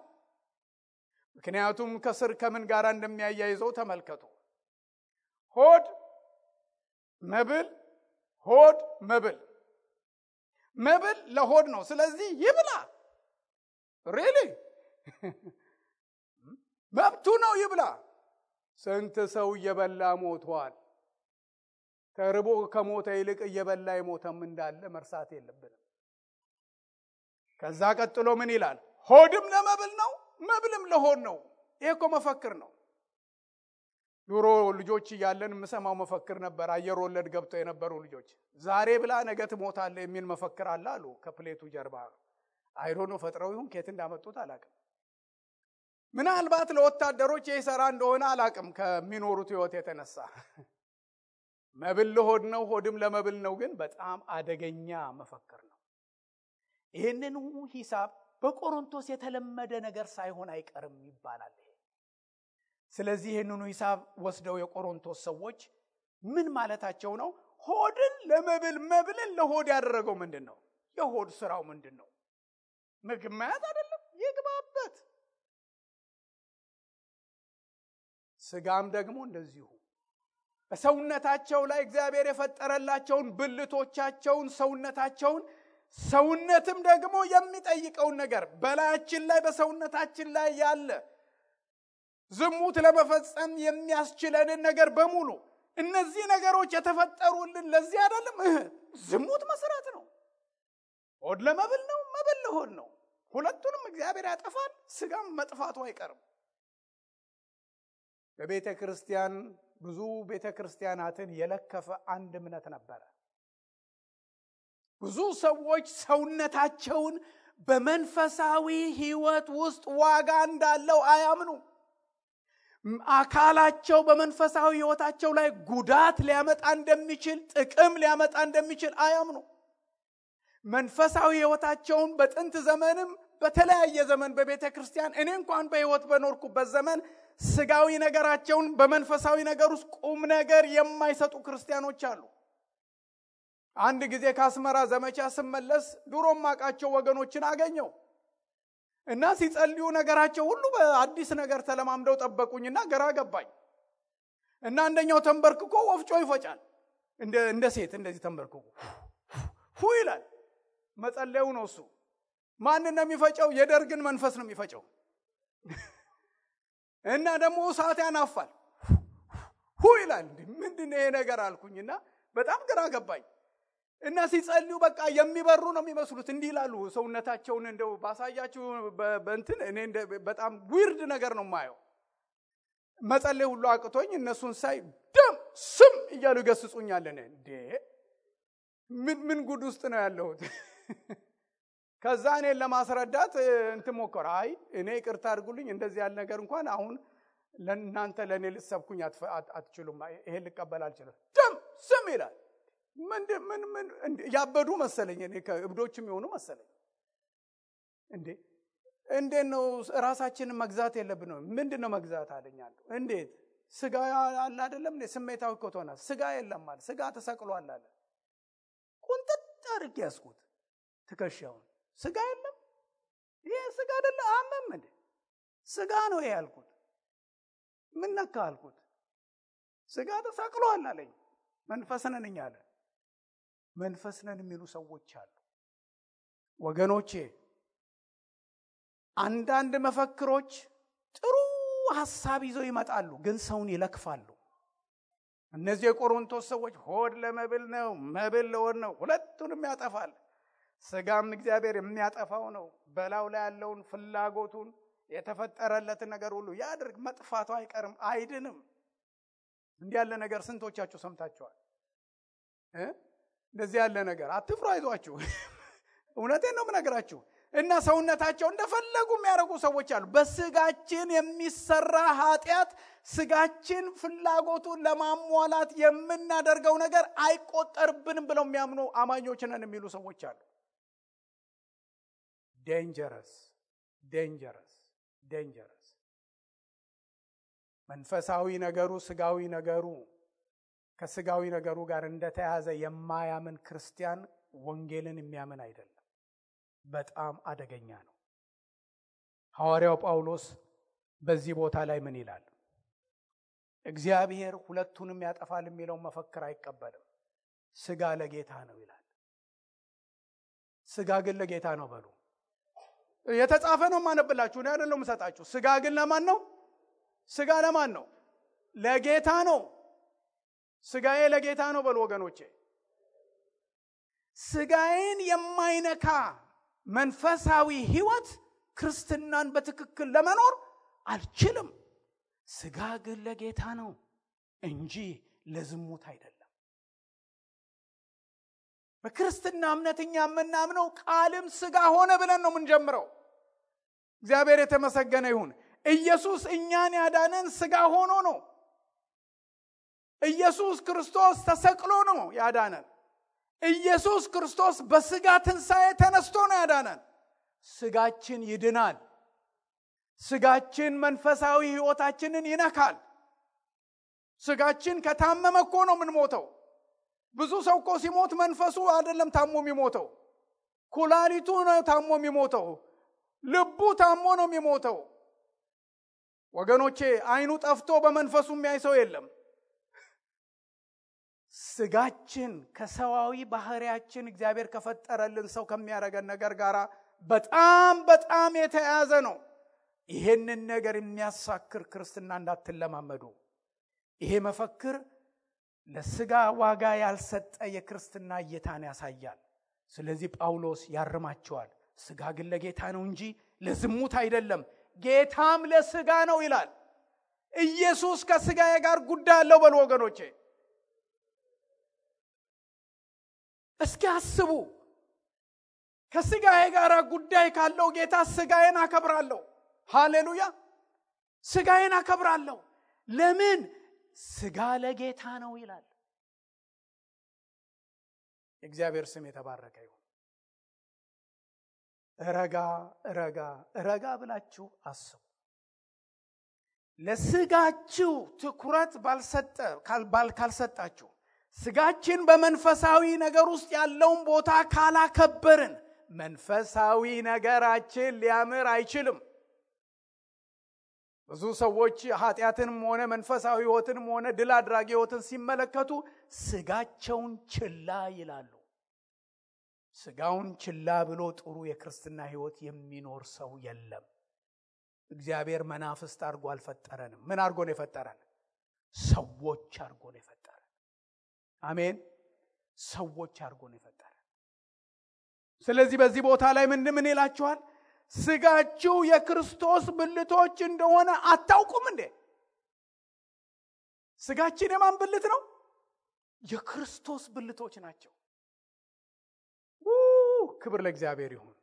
ምክንያቱም ከስር ከምን ጋር እንደሚያያይዘው ተመልከቱ። ሆድ መብል፣ ሆድ መብል፣ መብል ለሆድ ነው። ስለዚህ ይብላ። ሪሊ መብቱ ነው፣ ይብላ። ስንት ሰው እየበላ ሞቷል። ተርቦ ከሞተ ይልቅ እየበላ የሞተም እንዳለ መርሳት የለብንም። ከዛ ቀጥሎ ምን ይላል? ሆድም ለመብል ነው፣ መብልም ለሆድ ነው። ይሄ እኮ መፈክር ነው። ድሮ ልጆች እያለን የምሰማው መፈክር ነበር። አየር ወለድ ገብተው የነበሩ ልጆች ዛሬ ብላ ነገ ትሞታለህ የሚል መፈክር አለ አሉ ከፕሌቱ ጀርባ። አይሮኖ ፈጥረው ይሁን ከየት እንዳመጡት አላቅም። ምናልባት ለወታደሮች ይሰራ እንደሆነ አላቅም ከሚኖሩት ህይወት የተነሳ። መብል ለሆድ ነው፣ ሆድም ለመብል ነው ግን በጣም አደገኛ መፈክር ነው። ይህንን ሂሳብ በቆሮንቶስ የተለመደ ነገር ሳይሆን አይቀርም ይባላል። ስለዚህ ይህንን ሂሳብ ወስደው የቆሮንቶስ ሰዎች ምን ማለታቸው ነው? ሆድን ለመብል መብልን ለሆድ ያደረገው ምንድነው? የሆድ ስራው ምንድነው? ምግብ ማያት አይደለም፣ ይግባበት። ስጋም ደግሞ እንደዚሁ በሰውነታቸው ላይ እግዚአብሔር የፈጠረላቸውን ብልቶቻቸውን፣ ሰውነትም ደግሞ የሚጠይቀውን ነገር በላያችን ላይ በሰውነታችን ላይ ያለ ዝሙት ለመፈጸም የሚያስችለንን ነገር በሙሉ እነዚህ ነገሮች የተፈጠሩልን ለዚህ አይደለም? ዝሙት መስራት ነው። ሆድ ለመብል ነው፣ መብል ለሆድ ነው። ሁለቱንም እግዚአብሔር ያጠፋል። ስጋም መጥፋቱ አይቀርም። በቤተ ክርስቲያን ብዙ ቤተ ክርስቲያናትን የለከፈ አንድ እምነት ነበረ። ብዙ ሰዎች ሰውነታቸውን በመንፈሳዊ ህይወት ውስጥ ዋጋ እንዳለው አያምኑ። አካላቸው በመንፈሳዊ ህይወታቸው ላይ ጉዳት ሊያመጣ እንደሚችል፣ ጥቅም ሊያመጣ እንደሚችል አያምኑ። መንፈሳዊ ህይወታቸውን በጥንት ዘመንም በተለያየ ዘመን በቤተ ክርስቲያን እኔ እንኳን በህይወት በኖርኩበት ዘመን ስጋዊ ነገራቸውን በመንፈሳዊ ነገር ውስጥ ቁም ነገር የማይሰጡ ክርስቲያኖች አሉ። አንድ ጊዜ ከአስመራ ዘመቻ ስመለስ ድሮም ማቃቸው ወገኖችን አገኘው እና ሲጸልዩ ነገራቸው ሁሉ በአዲስ ነገር ተለማምደው ጠበቁኝና ግራ ገባኝ። እና አንደኛው ተንበርክኮ ወፍጮ ይፈጫል። እንደ ሴት እንደዚህ ተንበርክኮ ሁ ይላል። መጸለዩ ነው እሱ። ማን ነው የሚፈጨው? የደርግን መንፈስ ነው የሚፈጨው። እና ደግሞ እሳት ያናፋል። ሁ ይላል። ምንድነው ይሄ ነገር አልኩኝና በጣም ግራ ገባኝ። እና ሲጸልዩ በቃ የሚበሩ ነው የሚመስሉት። እንዲህ ይላሉ። ሰውነታቸውን እንደው ባሳያችሁ በእንትን እኔ በጣም ዊርድ ነገር ነው ማየው። መጸለይ ሁሉ አቅቶኝ እነሱን ሳይ ደም ስም እያሉ ይገስጹኛል። እንዴ ምን ጉድ ውስጥ ነው ያለሁት? ከዛ እኔን ለማስረዳት እንትን ሞከረ። አይ እኔ ይቅርታ አድርጉልኝ፣ እንደዚህ ያለ ነገር እንኳን አሁን ለእናንተ ለእኔ ልትሰብኩኝ አትችሉም። ይሄን ልቀበል አልችልም። ደም ስም ይላል። ምን ያበዱ መሰለኝ። እኔ ከእብዶችም የሆኑ መሰለኝ። እንዴት ነው ራሳችንን መግዛት የለብንም? ምንድነው መግዛት አለኛል። እንዴት ስጋ አለ አይደለም እንዴ? ስሜታዊ ኮቶና ስጋ የለም ማለት ስጋ ተሰቅሏል አለ። ቁንጥጥ አድርጌ ያስኩት ትከሻውን። ስጋ የለም፣ ይሄ ስጋ አይደለ አመም እንዴ? ስጋ ነው ይሄ ያልኩት። ምን ነካ አልኩት። ስጋ ተሰቅሏል አለኝ። መንፈስ ነን አለ። መንፈስ ነን የሚሉ ሰዎች አሉ ወገኖቼ። አንዳንድ መፈክሮች ጥሩ ሐሳብ ይዘው ይመጣሉ፣ ግን ሰውን ይለክፋሉ። እነዚህ የቆሮንቶስ ሰዎች ሆድ ለመብል ነው፣ መብል ለሆድ ነው፣ ሁለቱንም ያጠፋል። ስጋም እግዚአብሔር የሚያጠፋው ነው። በላው ላይ ያለውን ፍላጎቱን የተፈጠረለትን ነገር ሁሉ ያድርግ፣ መጥፋቱ አይቀርም፣ አይድንም። እንዲህ ያለ ነገር ስንቶቻችሁ ሰምታችኋል? እንደዚህ ያለ ነገር አትፍሩ፣ አይዟችሁ። እውነቴን ነው የምነግራችሁ። እና ሰውነታቸው እንደፈለጉ የሚያደርጉ ሰዎች አሉ። በስጋችን የሚሰራ ኃጢአት ስጋችን ፍላጎቱን ለማሟላት የምናደርገው ነገር አይቆጠርብንም ብለው የሚያምኑ አማኞች ነን የሚሉ ሰዎች አሉ። ዴንጀረስ። መንፈሳዊ ነገሩ ስጋዊ ነገሩ ከስጋዊ ነገሩ ጋር እንደተያዘ የማያምን ክርስቲያን ወንጌልን የሚያምን አይደለም። በጣም አደገኛ ነው። ሐዋርያው ጳውሎስ በዚህ ቦታ ላይ ምን ይላል? እግዚአብሔር ሁለቱንም ያጠፋል የሚለው መፈክር አይቀበልም። ስጋ ለጌታ ነው ይላል። ስጋ ግን ለጌታ ነው በሉ። የተጻፈ ነው ማነብላችሁ ነው አይደለም መሰጣችሁ። ስጋ ግን ለማን ነው? ስጋ ለማን ነው? ለጌታ ነው። ስጋዬ ለጌታ ነው በሉ ወገኖቼ። ስጋዬን የማይነካ መንፈሳዊ ህይወት ክርስትናን በትክክል ለመኖር አልችልም። ስጋ ግን ለጌታ ነው እንጂ ለዝሙት አይደለም። በክርስትና እምነትኛ የምናምነው ቃልም ስጋ ሆነ ብለን ነው የምንጀምረው። እግዚአብሔር የተመሰገነ ይሁን። ኢየሱስ እኛን ያዳነን ስጋ ሆኖ ነው። ኢየሱስ ክርስቶስ ተሰቅሎ ነው ያዳነን። ኢየሱስ ክርስቶስ በስጋ ትንሣኤ ተነስቶ ነው ያዳነን። ስጋችን ይድናል። ስጋችን መንፈሳዊ ህይወታችንን ይነካል። ስጋችን ከታመመ እኮ ነው የምንሞተው። ብዙ ሰው እኮ ሲሞት መንፈሱ አይደለም ታሞ የሚሞተው፣ ኩላሊቱ ነው ታሞ የሚሞተው፣ ልቡ ታሞ ነው የሚሞተው። ወገኖቼ አይኑ ጠፍቶ በመንፈሱ የሚያይ ሰው የለም። ስጋችን ከሰዋዊ ባህሪያችን እግዚአብሔር ከፈጠረልን ሰው ከሚያረገን ነገር ጋር በጣም የተያያዘ ነው። ይሄንን ነገር የሚያሳክር ክርስትና እንዳትለማመዱ። ይሄ መፈክር ለስጋ ዋጋ ያልሰጠ የክርስትና እይታን ያሳያል። ስለዚህ ጳውሎስ ያርማቸዋል። ስጋ ግን ለጌታ ነው እንጂ ለዝሙት አይደለም፣ ጌታም ለስጋ ነው ይላል። ኢየሱስ ከስጋዬ ጋር ጉዳይ አለው በሉ ወገኖቼ። እስኪ አስቡ። ከስጋዬ ጋር ጉዳይ ካለው ጌታ ስጋዬን አከብራለሁ። ሃሌሉያ! ስጋዬን አከብራለሁ። ለምን? ስጋ ለጌታ ነው ይላል። እግዚአብሔር ስም የተባረከ ይሁን። ረጋ ብላችሁ አስቡ። ለስጋችሁ ትኩረት ካልሰጣችሁ፣ ስጋችን በመንፈሳዊ ነገር ውስጥ ያለውን ቦታ ካላከበርን መንፈሳዊ ነገራችን ሊያምር አይችልም። ብዙ ሰዎች ኃጢአትንም ሆነ መንፈሳዊ ህይወትንም ሆነ ድል አድራጊ ህይወትን ሲመለከቱ ስጋቸውን ችላ ይላሉ። ስጋውን ችላ ብሎ ጥሩ የክርስትና ህይወት የሚኖር ሰው የለም። እግዚአብሔር መናፍስት አድርጎ አልፈጠረንም። ምን አድርጎ ነው የፈጠረን? ሰዎች አድርጎ ነው የፈጠረን። አሜን። ሰዎች አድርጎ ነው የፈጠረን። ስለዚህ በዚህ ቦታ ላይ ምን ይላችኋል? ስጋችሁ የክርስቶስ ብልቶች እንደሆነ አታውቁም እንዴ? ስጋችን የማን ብልት ነው? የክርስቶስ ብልቶች ናቸው። ክብር ለእግዚአብሔር ይሁን።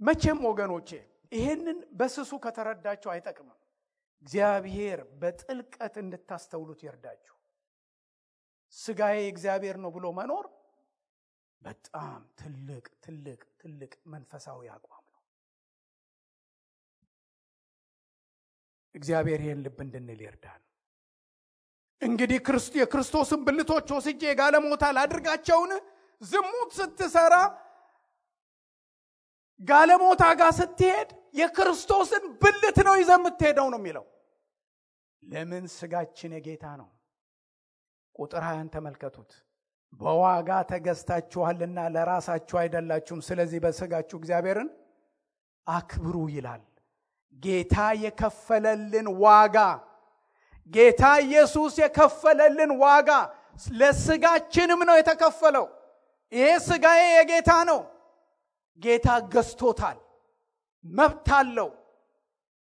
መቼም ወገኖቼ ይሄንን በስሱ ከተረዳችሁ አይጠቅምም። እግዚአብሔር በጥልቀት እንድታስተውሉት ይርዳችሁ። ስጋዬ እግዚአብሔር ነው ብሎ መኖር በጣም ትልቅ መንፈሳዊ አቋም ነው። እግዚአብሔር ይሄን ልብ እንድንል ይርዳን። እንግዲህ የክርስቶስን ብልቶች ወስጄ ጋለሞታ ላድርጋቸውን? ዝሙት ስትሰራ ጋለሞታ ጋር ስትሄድ የክርስቶስን ብልት ነው ይዘህ የምትሄደው ነው የሚለው። ለምን? ስጋችን የጌታ ነው። ቁጥር 20 ተመልከቱት። በዋጋ ተገዝታችኋልና ለራሳችሁ አይደላችሁም፣ ስለዚህ በስጋችሁ እግዚአብሔርን አክብሩ ይላል። ጌታ የከፈለልን ዋጋ፣ ጌታ ኢየሱስ የከፈለልን ዋጋ ለስጋችንም ነው የተከፈለው። ይሄ ስጋዬ የጌታ ነው። ጌታ ገዝቶታል። መብት አለው።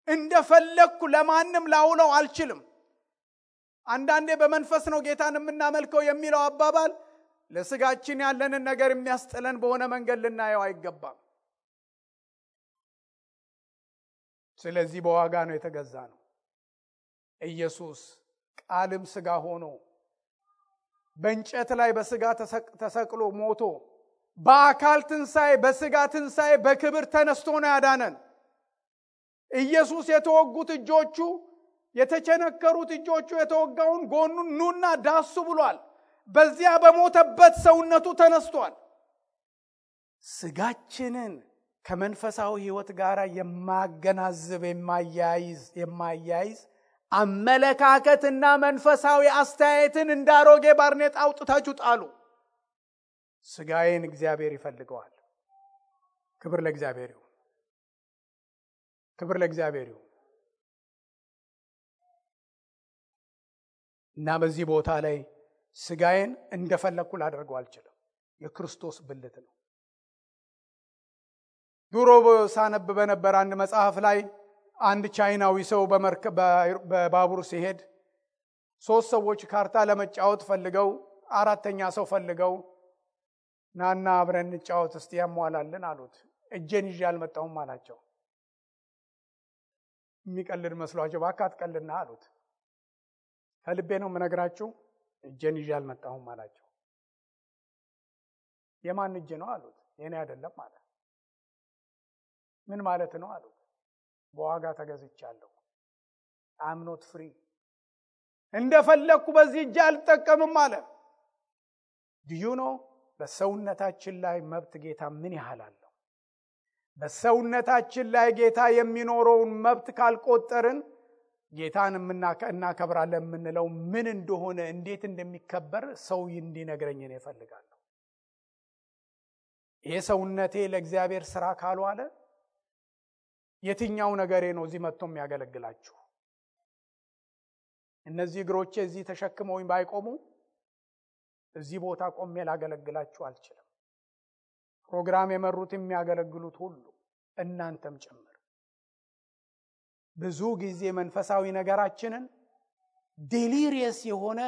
እንደፈለኩ ለማንም ላውለው አልችልም። አንዳንዴ በመንፈስ ነው ጌታን የምናመልከው የሚለው አባባል ለስጋችን ያለንን ነገር የሚያስጥለን በሆነ መንገድ ልናየው አይገባም። ስለዚህ በዋጋ ነው የተገዛ ነው። ኢየሱስ ቃልም ሥጋ ሆኖ በእንጨት ላይ በሥጋ ተሰቅሎ ሞቶ በአካል ትንሣኤ በሥጋ ትንሣኤ በክብር ተነስቶ ነው ያዳነን። ኢየሱስ የተወጉት እጆቹ የተቸነከሩት እጆቹ የተወጋውን ጎኑን ኑና ዳሱ ብሏል። በዚያ በሞተበት ሰውነቱ ተነስቷል። ሥጋችንን ከመንፈሳዊ ሕይወት ጋር የማገናዝብ የማያይዝ አመለካከትና መንፈሳዊ አስተያየትን እንዳሮጌ ባርኔጣ አውጥታችሁ ጣሉ። ሥጋዬን እግዚአብሔር ይፈልገዋል። ክብር ለእግዚአብሔር ይሁን። ክብር ለእግዚአብሔር ይሁን። እና በዚህ ቦታ ላይ ሥጋዬን እንደፈለኩ ላደርገው አልችልም። የክርስቶስ ብልት ነው። ድሮ ሳነብ በነበር አንድ መጽሐፍ ላይ አንድ ቻይናዊ ሰው በባቡር ሲሄድ 3 ሰዎች ካርታ ለመጫወት ፈልገው 4ኛ ሰው ፈልገው ናና አብረን እንጫወት እስቲ ያሟላልን አሉት። እጄን ይዤ አልመጣሁም አላቸው። የሚቀልድ መስሏቸው እባክህ አትቀልድና አሉት። ከልቤ ነው የምነግራችሁ፣ እጄን ይዤ አልመጣሁም አላቸው። የማን እጅ ነው አሉት። የኔ አይደለም አለ። ምን ማለት ነው አሉት። በዋጋ ተገዝቻለሁ። I'm not free። እንደፈለኩ በዚህ እጅ አልጠቀምም አለ። do you know በሰውነታችን ላይ መብት ጌታ ምን ያህል አለው? በሰውነታችን ላይ ጌታ የሚኖረውን መብት ካልቆጠርን ጌታን እናከብራለን የምንለው ምን እንደሆነ እንዴት እንደሚከበር ሰው እንዲነግረኝ ነው እፈልጋለሁ። ይሄ ሰውነቴ ለእግዚአብሔር ሥራ ካልዋለ የትኛው ነገሬ ነው እዚህ መጥቶ የሚያገለግላችሁ? እነዚህ እግሮቼ እዚህ ተሸክመውኝ ባይቆሙ እዚህ ቦታ ቆሜ ላገለግላችሁ አልችልም። ፕሮግራም የመሩት የሚያገለግሉት ሁሉ እናንተም ጭምር ብዙ ጊዜ መንፈሳዊ ነገራችንን ዴሊሪየስ የሆነ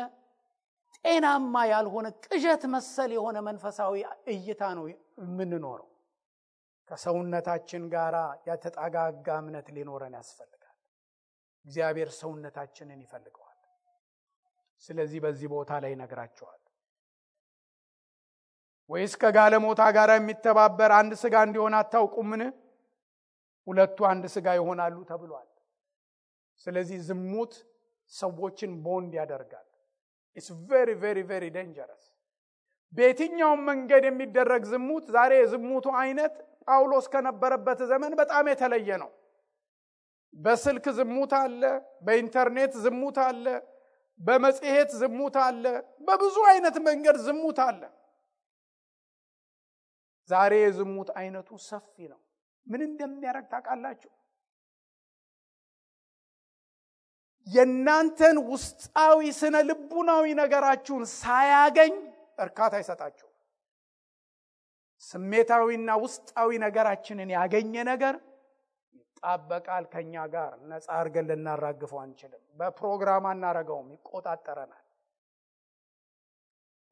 ጤናማ ያልሆነ ቅዠት መሰል የሆነ መንፈሳዊ እይታ ነው የምንኖረው። ከሰውነታችን ጋር ያተጣጋጋ እምነት ሊኖረን ያስፈልጋል። እግዚአብሔር ሰውነታችንን ይፈልገዋል። ስለዚህ በዚህ ቦታ ላይ ነግራቸዋል። ወይስ ከጋለሞታ ጋር የሚተባበር አንድ ሥጋ እንዲሆን አታውቁምን? ሁለቱ አንድ ሥጋ ይሆናሉ ተብሏል። ስለዚህ ዝሙት ሰዎችን ቦንድ ያደርጋል። it's very very very dangerous። በየትኛውም መንገድ የሚደረግ ዝሙት ዛሬ የዝሙቱ አይነት ጳውሎስ ከነበረበት ዘመን በጣም የተለየ ነው። በስልክ ዝሙት አለ፣ በኢንተርኔት ዝሙት አለ፣ በመጽሔት ዝሙት አለ፣ በብዙ አይነት መንገድ ዝሙት አለ። ዛሬ የዝሙት አይነቱ ሰፊ ነው። ምን እንደሚያደርግ ታውቃላችሁ? የእናንተን ውስጣዊ ስነ ልቡናዊ ነገራችሁን ሳያገኝ እርካታ አይሰጣችሁ። ስሜታዊና ውስጣዊ ነገራችንን ያገኘ ነገር ይጣበቃል ከኛ ጋር። ነፃ አድርገን ልናራግፈው አንችልም። በፕሮግራም አናረገውም፣ ይቆጣጠረናል።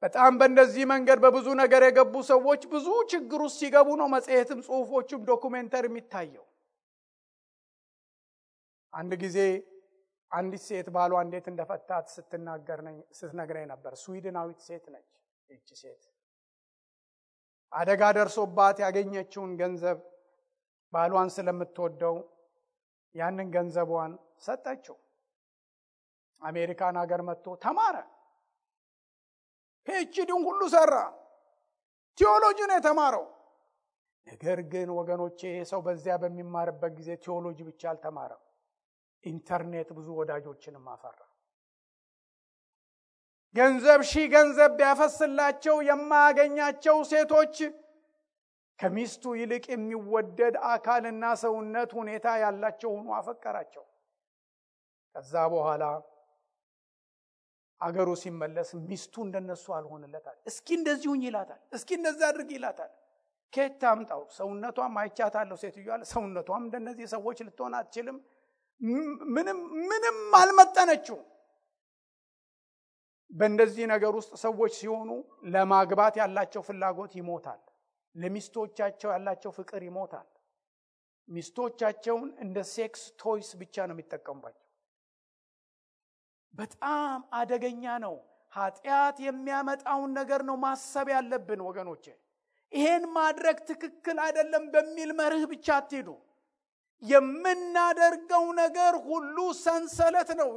በጣም በእንደዚህ መንገድ በብዙ ነገር የገቡ ሰዎች ብዙ ችግር ውስጥ ሲገቡ ነው መጽሔትም ጽሑፎችም ዶኩሜንተሪ የሚታየው። አንድ ጊዜ አንዲት ሴት ባሏ እንዴት እንደፈታት ስትነግረኝ ነበር። ስዊድናዊት ሴት ነች። እቺ ሴት አደጋ ደርሶባት ያገኘችውን ገንዘብ ባሏን ስለምትወደው ያንን ገንዘቧን ሰጠችው። አሜሪካን ሀገር መጥቶ ተማረ። ፒኤችዲውን ሁሉ ሰራ። ቴዎሎጂ ነው የተማረው። ነገር ግን ወገኖቼ ሰው በዚያ በሚማርበት ጊዜ ቴዎሎጂ ብቻ አልተማረም። ኢንተርኔት ብዙ ወዳጆችንም አፈራ። ገንዘብ ቢያፈስላቸው የማያገኛቸው ሴቶች ከሚስቱ ይልቅ የሚወደድ አካልና ሰውነት ሁኔታ ያላቸው ሆኖ አፈቀራቸው። ከዛ በኋላ አገሩ ሲመለስ ሚስቱ እንደነሱ አልሆነለታል። እስኪ እንደዚሁኝ ይላታል፣ እስኪ እንደዛ አድርግ ይላታል። ከየት ታምጣው? ሰውነቷም አይቻታለሁ ሴትዮዋ፣ ሰውነቷም እንደነዚህ ሰዎች ልትሆን አትችልም። ምንም አልመጠነችው። በእንደዚህ ነገር ውስጥ ሰዎች ሲሆኑ ለማግባት ያላቸው ፍላጎት ይሞታል። ለሚስቶቻቸው ያላቸው ፍቅር ይሞታል። ሚስቶቻቸውን እንደ ሴክስ ቶይስ ብቻ ነው የሚጠቀሙባቸው። በጣም አደገኛ ነው። ኃጢአት የሚያመጣውን ነገር ነው ማሰብ ያለብን ወገኖቼ። ይሄን ማድረግ ትክክል አይደለም በሚል መርህ ብቻ አትሄዱ። የምናደርገው ነገር ሁሉ ሰንሰለት ነው፣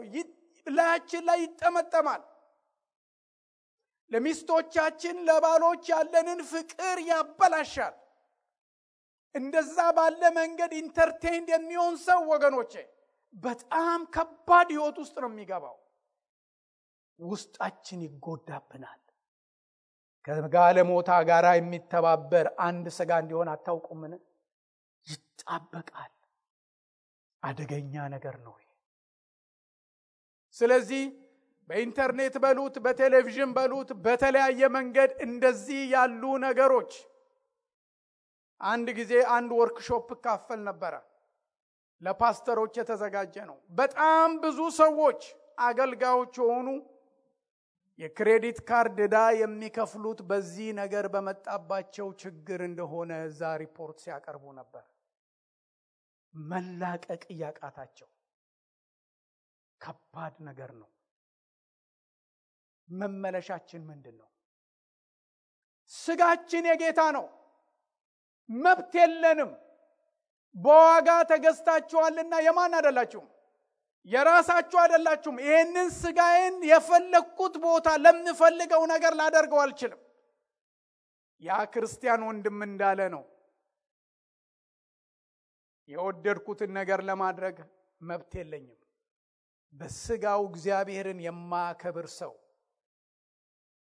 ላያችን ላይ ይጠመጠማል። ለሚስቶቻችን ለባሎች ያለንን ፍቅር ያበላሻል። እንደዛ ባለ መንገድ ኢንተርቴይንድ የሚሆን ሰው ወገኖቼ በጣም ከባድ ህይወት ውስጥ ነው የሚገባው። ውስጣችን ይጎዳብናል። ከጋለሞታ ጋር የሚተባበር አንድ ስጋ እንዲሆን አታውቁምን? ይጣበቃል። አደገኛ ነገር ነው። ስለዚህ በኢንተርኔት በሉት በቴሌቪዥን በሉት በተለያየ መንገድ እንደዚህ ያሉ ነገሮች አንድ ጊዜ አንድ ወርክሾፕ ካፈል ነበር። ለፓስተሮች የተዘጋጀ ነው። በጣም ብዙ ሰዎች አገልጋዮች ሆኑ የክሬዲት ካርድ ዕዳ የሚከፍሉት በዚህ ነገር በመጣባቸው ችግር እንደሆነ እዛ ሪፖርት ሲያቀርቡ ነበር። መላቀቅ ያቃታቸው ከባድ ነገር ነው። መመለሻችን ምንድነው? ስጋችን የጌታ ነው። መብት የለንም። በዋጋ ተገዝታችኋልና የማን አይደላችሁም? የራሳችሁ አይደላችሁም። ይሄንን ስጋዬን የፈለኩት ቦታ ለምፈልገው ነገር ላደርገው አልችልም። ያ ክርስቲያን ወንድም እንዳለ ነው። የወደድኩትን ነገር ለማድረግ መብት የለኝም። በስጋው እግዚአብሔርን የማያከብር ሰው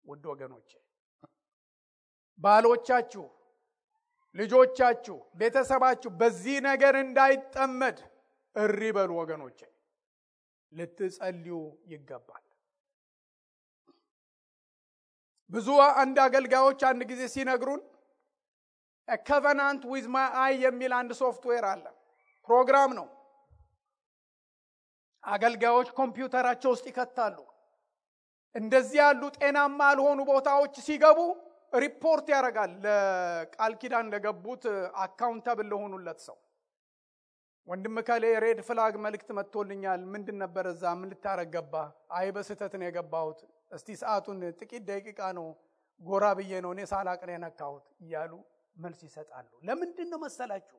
ውድ ወገኖቼ፣ ባሎቻችሁ፣ ልጆቻችሁ፣ ቤተሰባችሁ በዚህ ነገር እንዳይጠመድ እሪ በሉ ወገኖቼ። ልትጸልዩ ይገባል። ብዙ አንድ አገልጋዮች አንድ ጊዜ ሲነግሩን a covenant with my eye የሚል አንድ ሶፍትዌር አለ። ፕሮግራም ነው። አገልጋዮች ኮምፒውተራቸው ውስጥ ይከታሉ። እንደዚህ ያሉ ጤናማ ያልሆኑ ቦታዎች ሲገቡ ሪፖርት ያደርጋል ለቃል ኪዳን ለገቡት አካውንታብል ለሆኑለት ሰው። ወንድም ካለ ሬድ ፍላግ መልእክት መጥቶልኛል፣ ምንድን ነበር እዛ? ምን ልታረግ ገባ? አይ በስተት ነው የገባሁት፣ እስቲ ሰዓቱን ጥቂት ደቂቃ ነው ጎራ ብዬ ነው እኔ ሳላቅ ነው የነካሁት እያሉ መልስ ይሰጣሉ። ለምንድን ነው መሰላችሁ?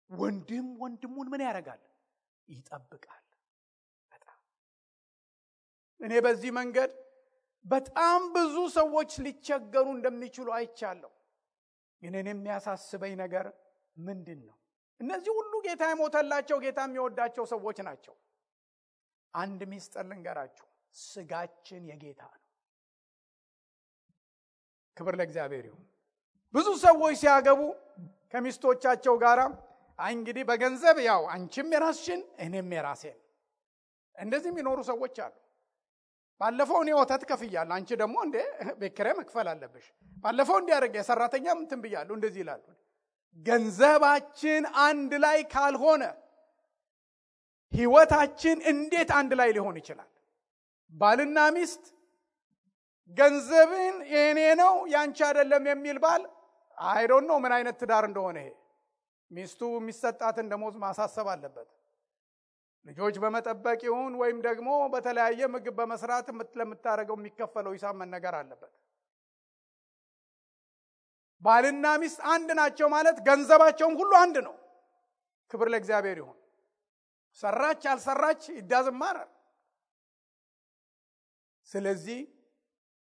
ወንድም ወንድሙን ምን ያደርጋል? ይጠብቃል። እኔ በዚህ መንገድ በጣም ብዙ ሰዎች ሊቸገሩ እንደሚችሉ አይቻለሁ። ግን እኔ የሚያሳስበኝ ነገር ምንድን ነው? እነዚህ ሁሉ ጌታ የሞተላቸው ጌታ የሚወዳቸው ሰዎች ናቸው። አንድ ሚስጥር ልንገራችሁ፣ ስጋችን የጌታ ነው። ክብር ለእግዚአብሔር ይሁን። ብዙ ሰዎች ሲያገቡ ከሚስቶቻቸው ጋር እንግዲህ በገንዘብ ያው አንቺም የራስሽን እኔም የራሴን እንደዚህ የሚኖሩ ሰዎች አሉ። ባለፈው እኔ ወተት ከፍያለሁ፣ አንቺ ደግሞ እንደ ቤት ኪራይ መክፈል አለብሽ። ባለፈው እንዲያደርግ የሰራተኛ እንትን ብያለሁ፣ እንደዚህ ይላሉ። ገንዘባችን አንድ ላይ ካልሆነ ህይወታችን እንዴት አንድ ላይ ሊሆን ይችላል? ባልና ሚስት ገንዘብን የኔ ነው ያንቺ አይደለም የሚል ባል አይ ዶንት ኖ ምን አይነት ትዳር እንደሆነ። ይሄ ሚስቱ የሚሰጣትን ደሞዝ ማሳሰብ አለበት። ልጆች በመጠበቅ ይሁን ወይም ደግሞ በተለያየ ምግብ በመስራት ለምታረገው የሚከፈለው ሂሳብ መነገር አለበት። ባልና ሚስት አንድ ናቸው ማለት ገንዘባቸውም ሁሉ አንድ ነው። ክብር ለእግዚአብሔር ይሁን። ሰራች አልሰራች ይዳዝማር። ስለዚህ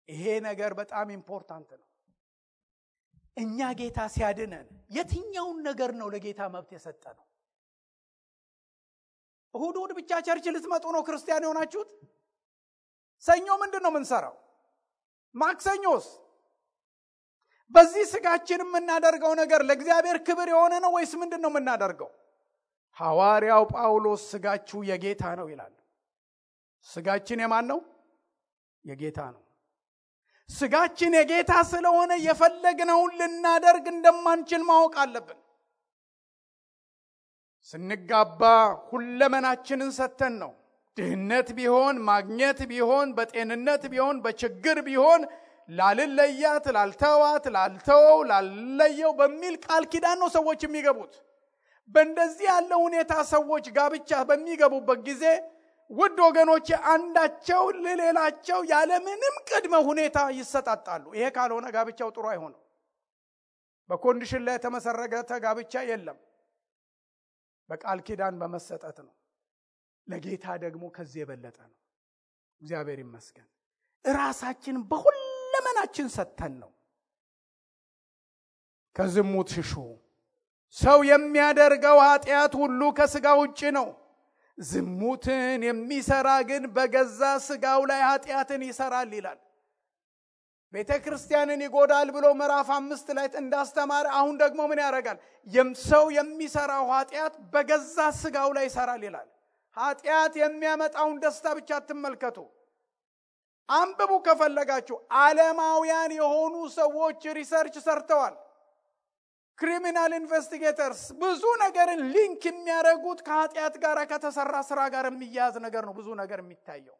ይሄ ነገር በጣም ኢምፖርታንት ነው። እኛ ጌታ ሲያድነን የትኛውን ነገር ነው ለጌታ መብት የሰጠነው? እሁድ ብቻ ቸርች ልትመጡ ነው ክርስቲያን የሆናችሁት? ሰኞ ምንድን ነው የምንሰራው? ማክሰኞስ? በዚህ ስጋችን የምናደርገው ነገር ለእግዚአብሔር ክብር የሆነ ነው ወይስ ምንድን ነው የምናደርገው? ሐዋርያው ጳውሎስ ስጋችሁ የጌታ ነው ይላል። ስጋችን የማን ነው? የጌታ ነው። ስጋችን የጌታ ስለሆነ የፈለግነውን ልናደርግ እንደማንችል ማወቅ አለብን። ስንጋባ ሁለመናችንን ሰተን ነው። ድህነት ቢሆን ማግኘት ቢሆን በጤንነት ቢሆን በችግር ቢሆን ላልለያት ላልተዋት ላልተወው ላልለየው በሚል ቃል ኪዳን ነው ሰዎች የሚገቡት። በእንደዚህ ያለ ሁኔታ ሰዎች ጋብቻ በሚገቡበት ጊዜ ውድ ወገኖቼ አንዳቸው ለሌላቸው ያለምንም ቅድመ ሁኔታ ይሰጣጣሉ። ይሄ ካልሆነ ጋብቻው ጥሩ አይሆንም። በኮንዲሽን ላይ የተመሰረተ ጋብቻ የለም። በቃል ኪዳን በመሰጠት ነው። ለጌታ ደግሞ ከዚህ የበለጠ ነው። እግዚአብሔር ይመስገን። ራሳችን በሁለመናችን ሰጥተን ነው። ከዝሙት ሽሹ። ሰው የሚያደርገው ኃጢአት ሁሉ ከሥጋ ውጪ ነው። ዝሙትን የሚሰራ ግን በገዛ ሥጋው ላይ ኃጢአትን ይሰራል ይላል። ቤተ ክርስቲያንን ይጎዳል ብሎ ምዕራፍ 5 ላይ እንዳስተማረ አሁን ደግሞ ምን ያደርጋል? ሰው የሚሰራው ኃጢአት በገዛ ሥጋው ላይ ይሰራል ይላል። ኃጢአት የሚያመጣውን ደስታ ብቻ አትመልከቱ። አንብቡ ከፈለጋችሁ። ዓለማውያን የሆኑ ሰዎች ሪሰርች ሰርተዋል። ክሪሚናል ኢንቨስቲጌተርስ ብዙ ነገርን ሊንክ የሚያደርጉት ከኃጢአት ጋር ከተሰራ ስራ ጋር የሚያያዝ ነገር ነው ብዙ ነገር የሚታየው።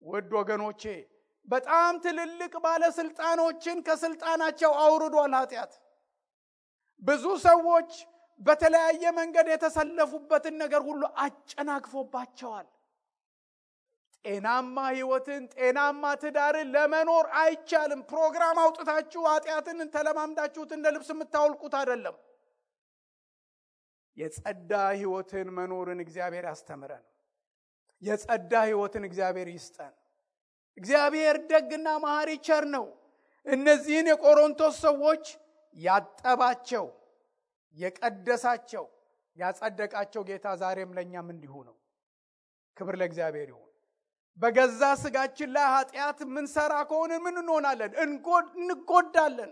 ውድ ወገኖቼ በጣም ትልልቅ ባለስልጣኖችን ከስልጣናቸው አውርዷል ኃጢአት። ብዙ ሰዎች በተለያየ መንገድ የተሰለፉበትን ነገር ሁሉ አጨናግፎባቸዋል። ጤናማ ህይወትን ጤናማ ትዳርን ለመኖር አይቻልም። ፕሮግራም አውጥታችሁ ኃጢአትን ተለማምዳችሁት እንደ ልብስ የምታወልቁት አይደለም። የጸዳ ህይወትን መኖርን እግዚአብሔር ያስተምረን። የጸዳ ህይወትን እግዚአብሔር ይስጠን። እግዚአብሔር ደግና መሐሪ ቸር ነው። እነዚህን የቆሮንቶስ ሰዎች ያጠባቸው፣ የቀደሳቸው፣ ያጸደቃቸው ጌታ ዛሬም ለኛም እንዲሁ ነው። ክብር ለእግዚአብሔር ይሁን። በገዛ ስጋችን ላይ ኃጢአት ምንሰራ ከሆነ ምን እንሆናለን? እንጎዳለን።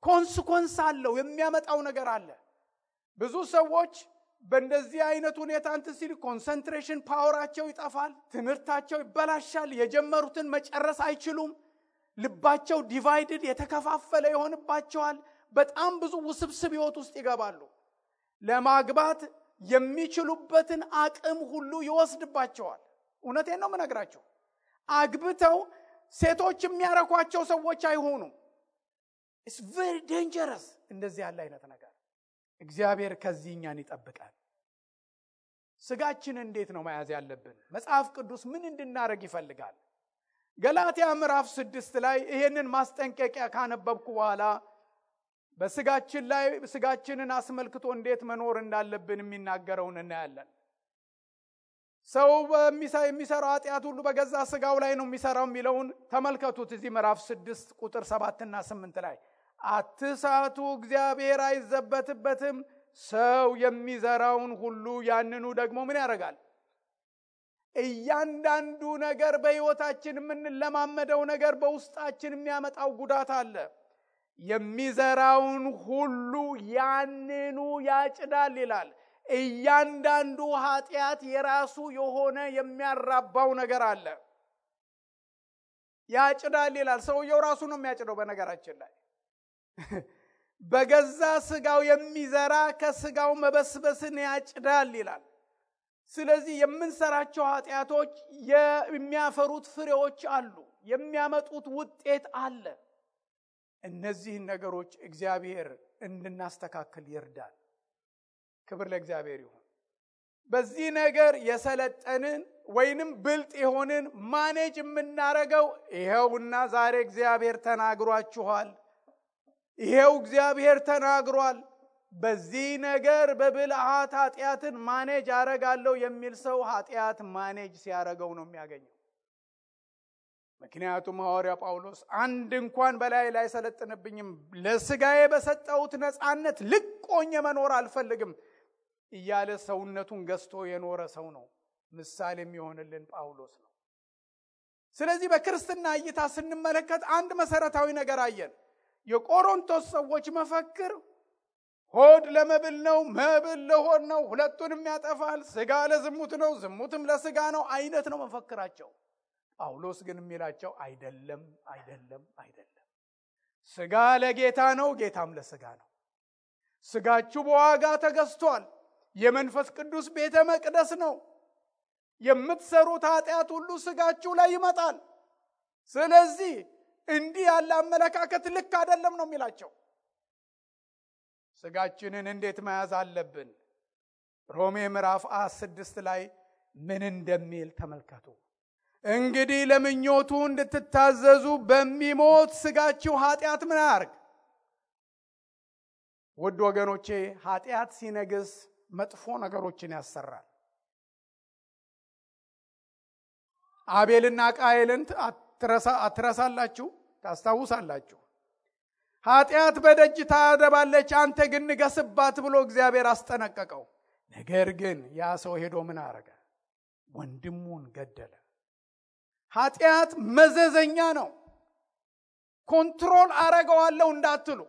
ኮንሲኮንስ አለው፣ የሚያመጣው ነገር አለ። ብዙ ሰዎች በእንደዚህ አይነት ሁኔታ ሲል ኮንሰንትሬሽን ፓወራቸው ይጠፋል፣ ትምህርታቸው ይበላሻል፣ የጀመሩትን መጨረስ አይችሉም፣ ልባቸው ዲቫይድድ የተከፋፈለ ይሆንባቸዋል። በጣም ብዙ ውስብስብ ህይወት ውስጥ ይገባሉ። ለማግባት የሚችሉበትን አቅም ሁሉ ይወስድባቸዋል። እውነቴን ነው የምነግራቸው። አግብተው ሴቶች የሚያረኳቸው ሰዎች አይሆኑም። it's very dangerous እንደዚህ ያለ አይነት ነገር። እግዚአብሔር ከዚህ እኛን ይጠብቃል። ስጋችን እንዴት ነው መያዝ ያለብን? መጽሐፍ ቅዱስ ምን እንድናረግ ይፈልጋል? ገላትያ ምዕራፍ 6 ላይ ይሄንን ማስጠንቀቂያ ካነበብኩ በኋላ በስጋችን ላይ ስጋችንን አስመልክቶ እንዴት መኖር እንዳለብን የሚናገረውን እናያለን። ሰው የሚሰራው ኃጢአት ሁሉ በገዛ ስጋው ላይ ነው የሚሰራው የሚለውን ተመልከቱት። እዚህ ምዕራፍ 6 ቁጥር 7 እና 8 ላይ አትሳቱ፣ እግዚአብሔር አይዘበትበትም። ሰው የሚዘራውን ሁሉ ያንኑ ደግሞ ምን ያደርጋል? እያንዳንዱ ነገር በህይወታችን የምንለማመደው ነገር በውስጣችን የሚያመጣው ጉዳት አለ። የሚዘራውን ሁሉ ያንኑ ያጭዳል ይላል። እያንዳንዱ ኃጢአት የራሱ የሆነ የሚያራባው ነገር አለ። ያጭዳል ይላል። ሰውየው ራሱ ነው የሚያጭደው። በነገራችን ላይ በገዛ ስጋው የሚዘራ ከስጋው መበስበስን ያጭዳል ይላል። ስለዚህ የምንሰራቸው ኃጢአቶች የሚያፈሩት ፍሬዎች አሉ፣ የሚያመጡት ውጤት አለ። እነዚህን ነገሮች እግዚአብሔር እንድናስተካክል ይርዳል። ክብር ለእግዚአብሔር ይሁን። በዚህ ነገር የሰለጠንን ወይንም ብልጥ የሆንን ማኔጅ የምናረገው ይሄውና ዛሬ እግዚአብሔር ተናግሯችኋል፣ ይሄው እግዚአብሔር ተናግሯል፣ በዚህ ነገር በብልሃት ኃጢአትን ማኔጅ አረጋለሁ የሚል ሰው ኃጢአት ማኔጅ ሲያረገው ነው የሚያገኘው። ምክንያቱም ሐዋርያ ጳውሎስ አንድ እንኳን በላይ ላይ ሰለጥንብኝም ለስጋዬ በሰጠሁት ነፃነት ልቆኝ መኖር አልፈልግም እያለ ሰውነቱን ገዝቶ የኖረ ሰው ነው። ምሳሌ የሚሆንልን ጳውሎስ ነው። ስለዚህ በክርስትና እይታ ስንመለከት አንድ መሰረታዊ ነገር አየን። የቆሮንቶስ ሰዎች መፈክር ሆድ ለመብል ነው፣ መብል ለሆድ ነው፣ ሁለቱንም ያጠፋል፣ ስጋ ለዝሙት ነው፣ ዝሙትም ለስጋ ነው አይነት ነው መፈክራቸው። ጳውሎስ ግን የሚላቸው አይደለም፣ አይደለም፣ አይደለም። ስጋ ለጌታ ነው፣ ጌታም ለስጋ ነው። ስጋችሁ በዋጋ ተገዝቷል። የመንፈስ ቅዱስ ቤተ መቅደስ ነው። የምትሰሩት ኃጢአት ሁሉ ስጋችሁ ላይ ይመጣል። ስለዚህ እንዲህ ያለ አመለካከት ልክ አይደለም ነው የሚላቸው። ስጋችንን እንዴት መያዝ አለብን? ሮሜ ምዕራፍ 6 ላይ ምን እንደሚል ተመልከቱ። እንግዲህ ለምኞቱ እንድትታዘዙ በሚሞት ስጋችሁ ኃጢአት ምን ያርግ? ውድ ወገኖቼ ኃጢአት ሲነግስ መጥፎ ነገሮችን ያሰራል። አቤልና ቃየልን አትረሳላችሁ፣ ታስታውሳላችሁ። ኃጢአት በደጅ ታደባለች፣ አንተ ግን ንገስባት ብሎ እግዚአብሔር አስጠነቀቀው። ነገር ግን ያ ሰው ሄዶ ምን አረገ? ወንድሙን ገደለ። ኃጢአት መዘዘኛ ነው። ኮንትሮል አረገዋለሁ እንዳትሉ።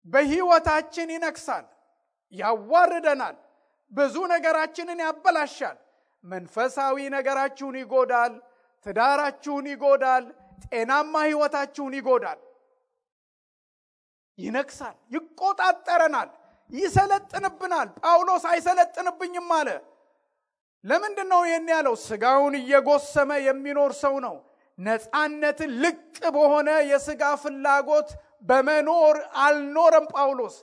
በህይወታችን ይነክሳል፣ ያዋርደናል፣ ብዙ ነገራችንን ያበላሻል። መንፈሳዊ ነገራችሁን ይጎዳል፣ ትዳራችሁን ይጎዳል፣ ጤናማ ህይወታችሁን ይጎዳል። ይነክሳል፣ ይቆጣጠረናል፣ ይሰለጥንብናል። ጳውሎስ አይሰለጥንብኝም አለ። ለምንድነው ይሄን ያለው? ስጋውን እየጎሰመ የሚኖር ሰው ነው። ነፃነትን ልቅ በሆነ የስጋ ፍላጎት በመኖር አልኖረም ጳውሎስ።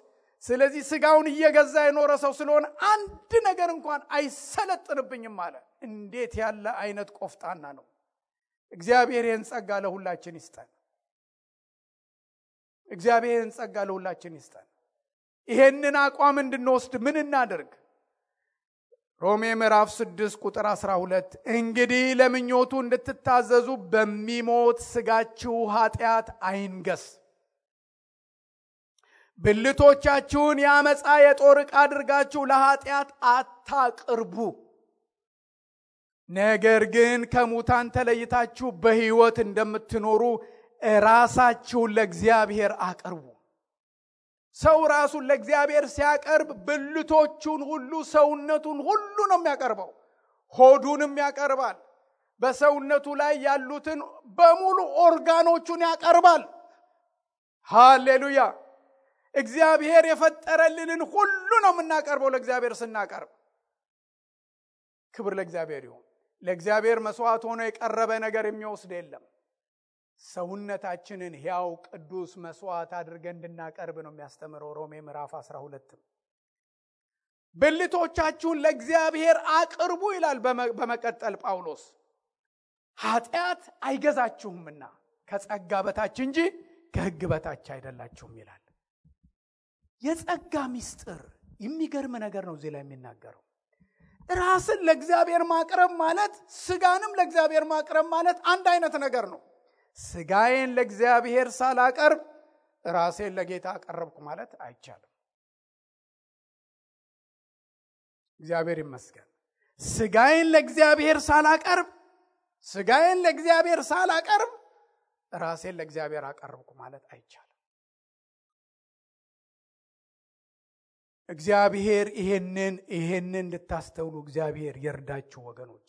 ስለዚህ ስጋውን እየገዛ የኖረ ሰው ስለሆነ አንድ ነገር እንኳን አይሰለጥንብኝም አለ። እንዴት ያለ አይነት ቆፍጣና ነው! እግዚአብሔር ይህን ጸጋ ለሁላችን ይስጠን። እግዚአብሔር ይህን ጸጋ ለሁላችን ይስጠን። ይሄንን አቋም እንድንወስድ ምን እናደርግ? ሮሜ ምዕራፍ 6 ቁጥር 12 እንግዲህ ለምኞቱ እንድትታዘዙ በሚሞት ስጋችሁ ኃጢአት አይንገስ። ብልቶቻችሁን የአመፃ የጦር ዕቃ አድርጋችሁ ለኃጢአት አታቅርቡ። ነገር ግን ከሙታን ተለይታችሁ በሕይወት እንደምትኖሩ ራሳችሁን ለእግዚአብሔር አቅርቡ። ሰው ራሱን ለእግዚአብሔር ሲያቀርብ ብልቶቹን ሁሉ ሰውነቱን ሁሉ ነው የሚያቀርበው። ሆዱንም ያቀርባል። በሰውነቱ ላይ ያሉትን በሙሉ ኦርጋኖቹን ያቀርባል። ሃሌሉያ! እግዚአብሔር የፈጠረልንን ሁሉ ነው የምናቀርበው ለእግዚአብሔር ስናቀርብ። ክብር ለእግዚአብሔር ይሁን። ለእግዚአብሔር መስዋዕት ሆኖ የቀረበ ነገር የሚወስድ የለም። ሰውነታችንን ሕያው ቅዱስ መስዋዕት አድርገን እንድናቀርብ ነው የሚያስተምረው ሮሜ ምዕራፍ 12። ብልቶቻችሁን ለእግዚአብሔር አቅርቡ ይላል በመቀጠል ጳውሎስ። ኃጢአት አይገዛችሁምና ከጸጋ በታች እንጂ ከሕግ በታች አይደላችሁም ይላል። የጸጋ ምስጢር የሚገርም ነገር ነው እዚህ ላይ የሚናገረው። ራስን ለእግዚአብሔር ማቅረብ ማለት ስጋንም ለእግዚአብሔር ማቅረብ ማለት አንድ አይነት ነገር ነው። ስጋዬን ለእግዚአብሔር ሳላቀርብ ራሴን ለጌታ አቀረብኩ ማለት አይቻልም። እግዚአብሔር ይመስገን። ስጋዬን ለእግዚአብሔር ሳላቀርብ ራሴን ለእግዚአብሔር አቀረብኩ ማለት አይቻልም። እግዚአብሔር ይሄንን እንድታስተውሉ እግዚአብሔር ይርዳችሁ ወገኖች።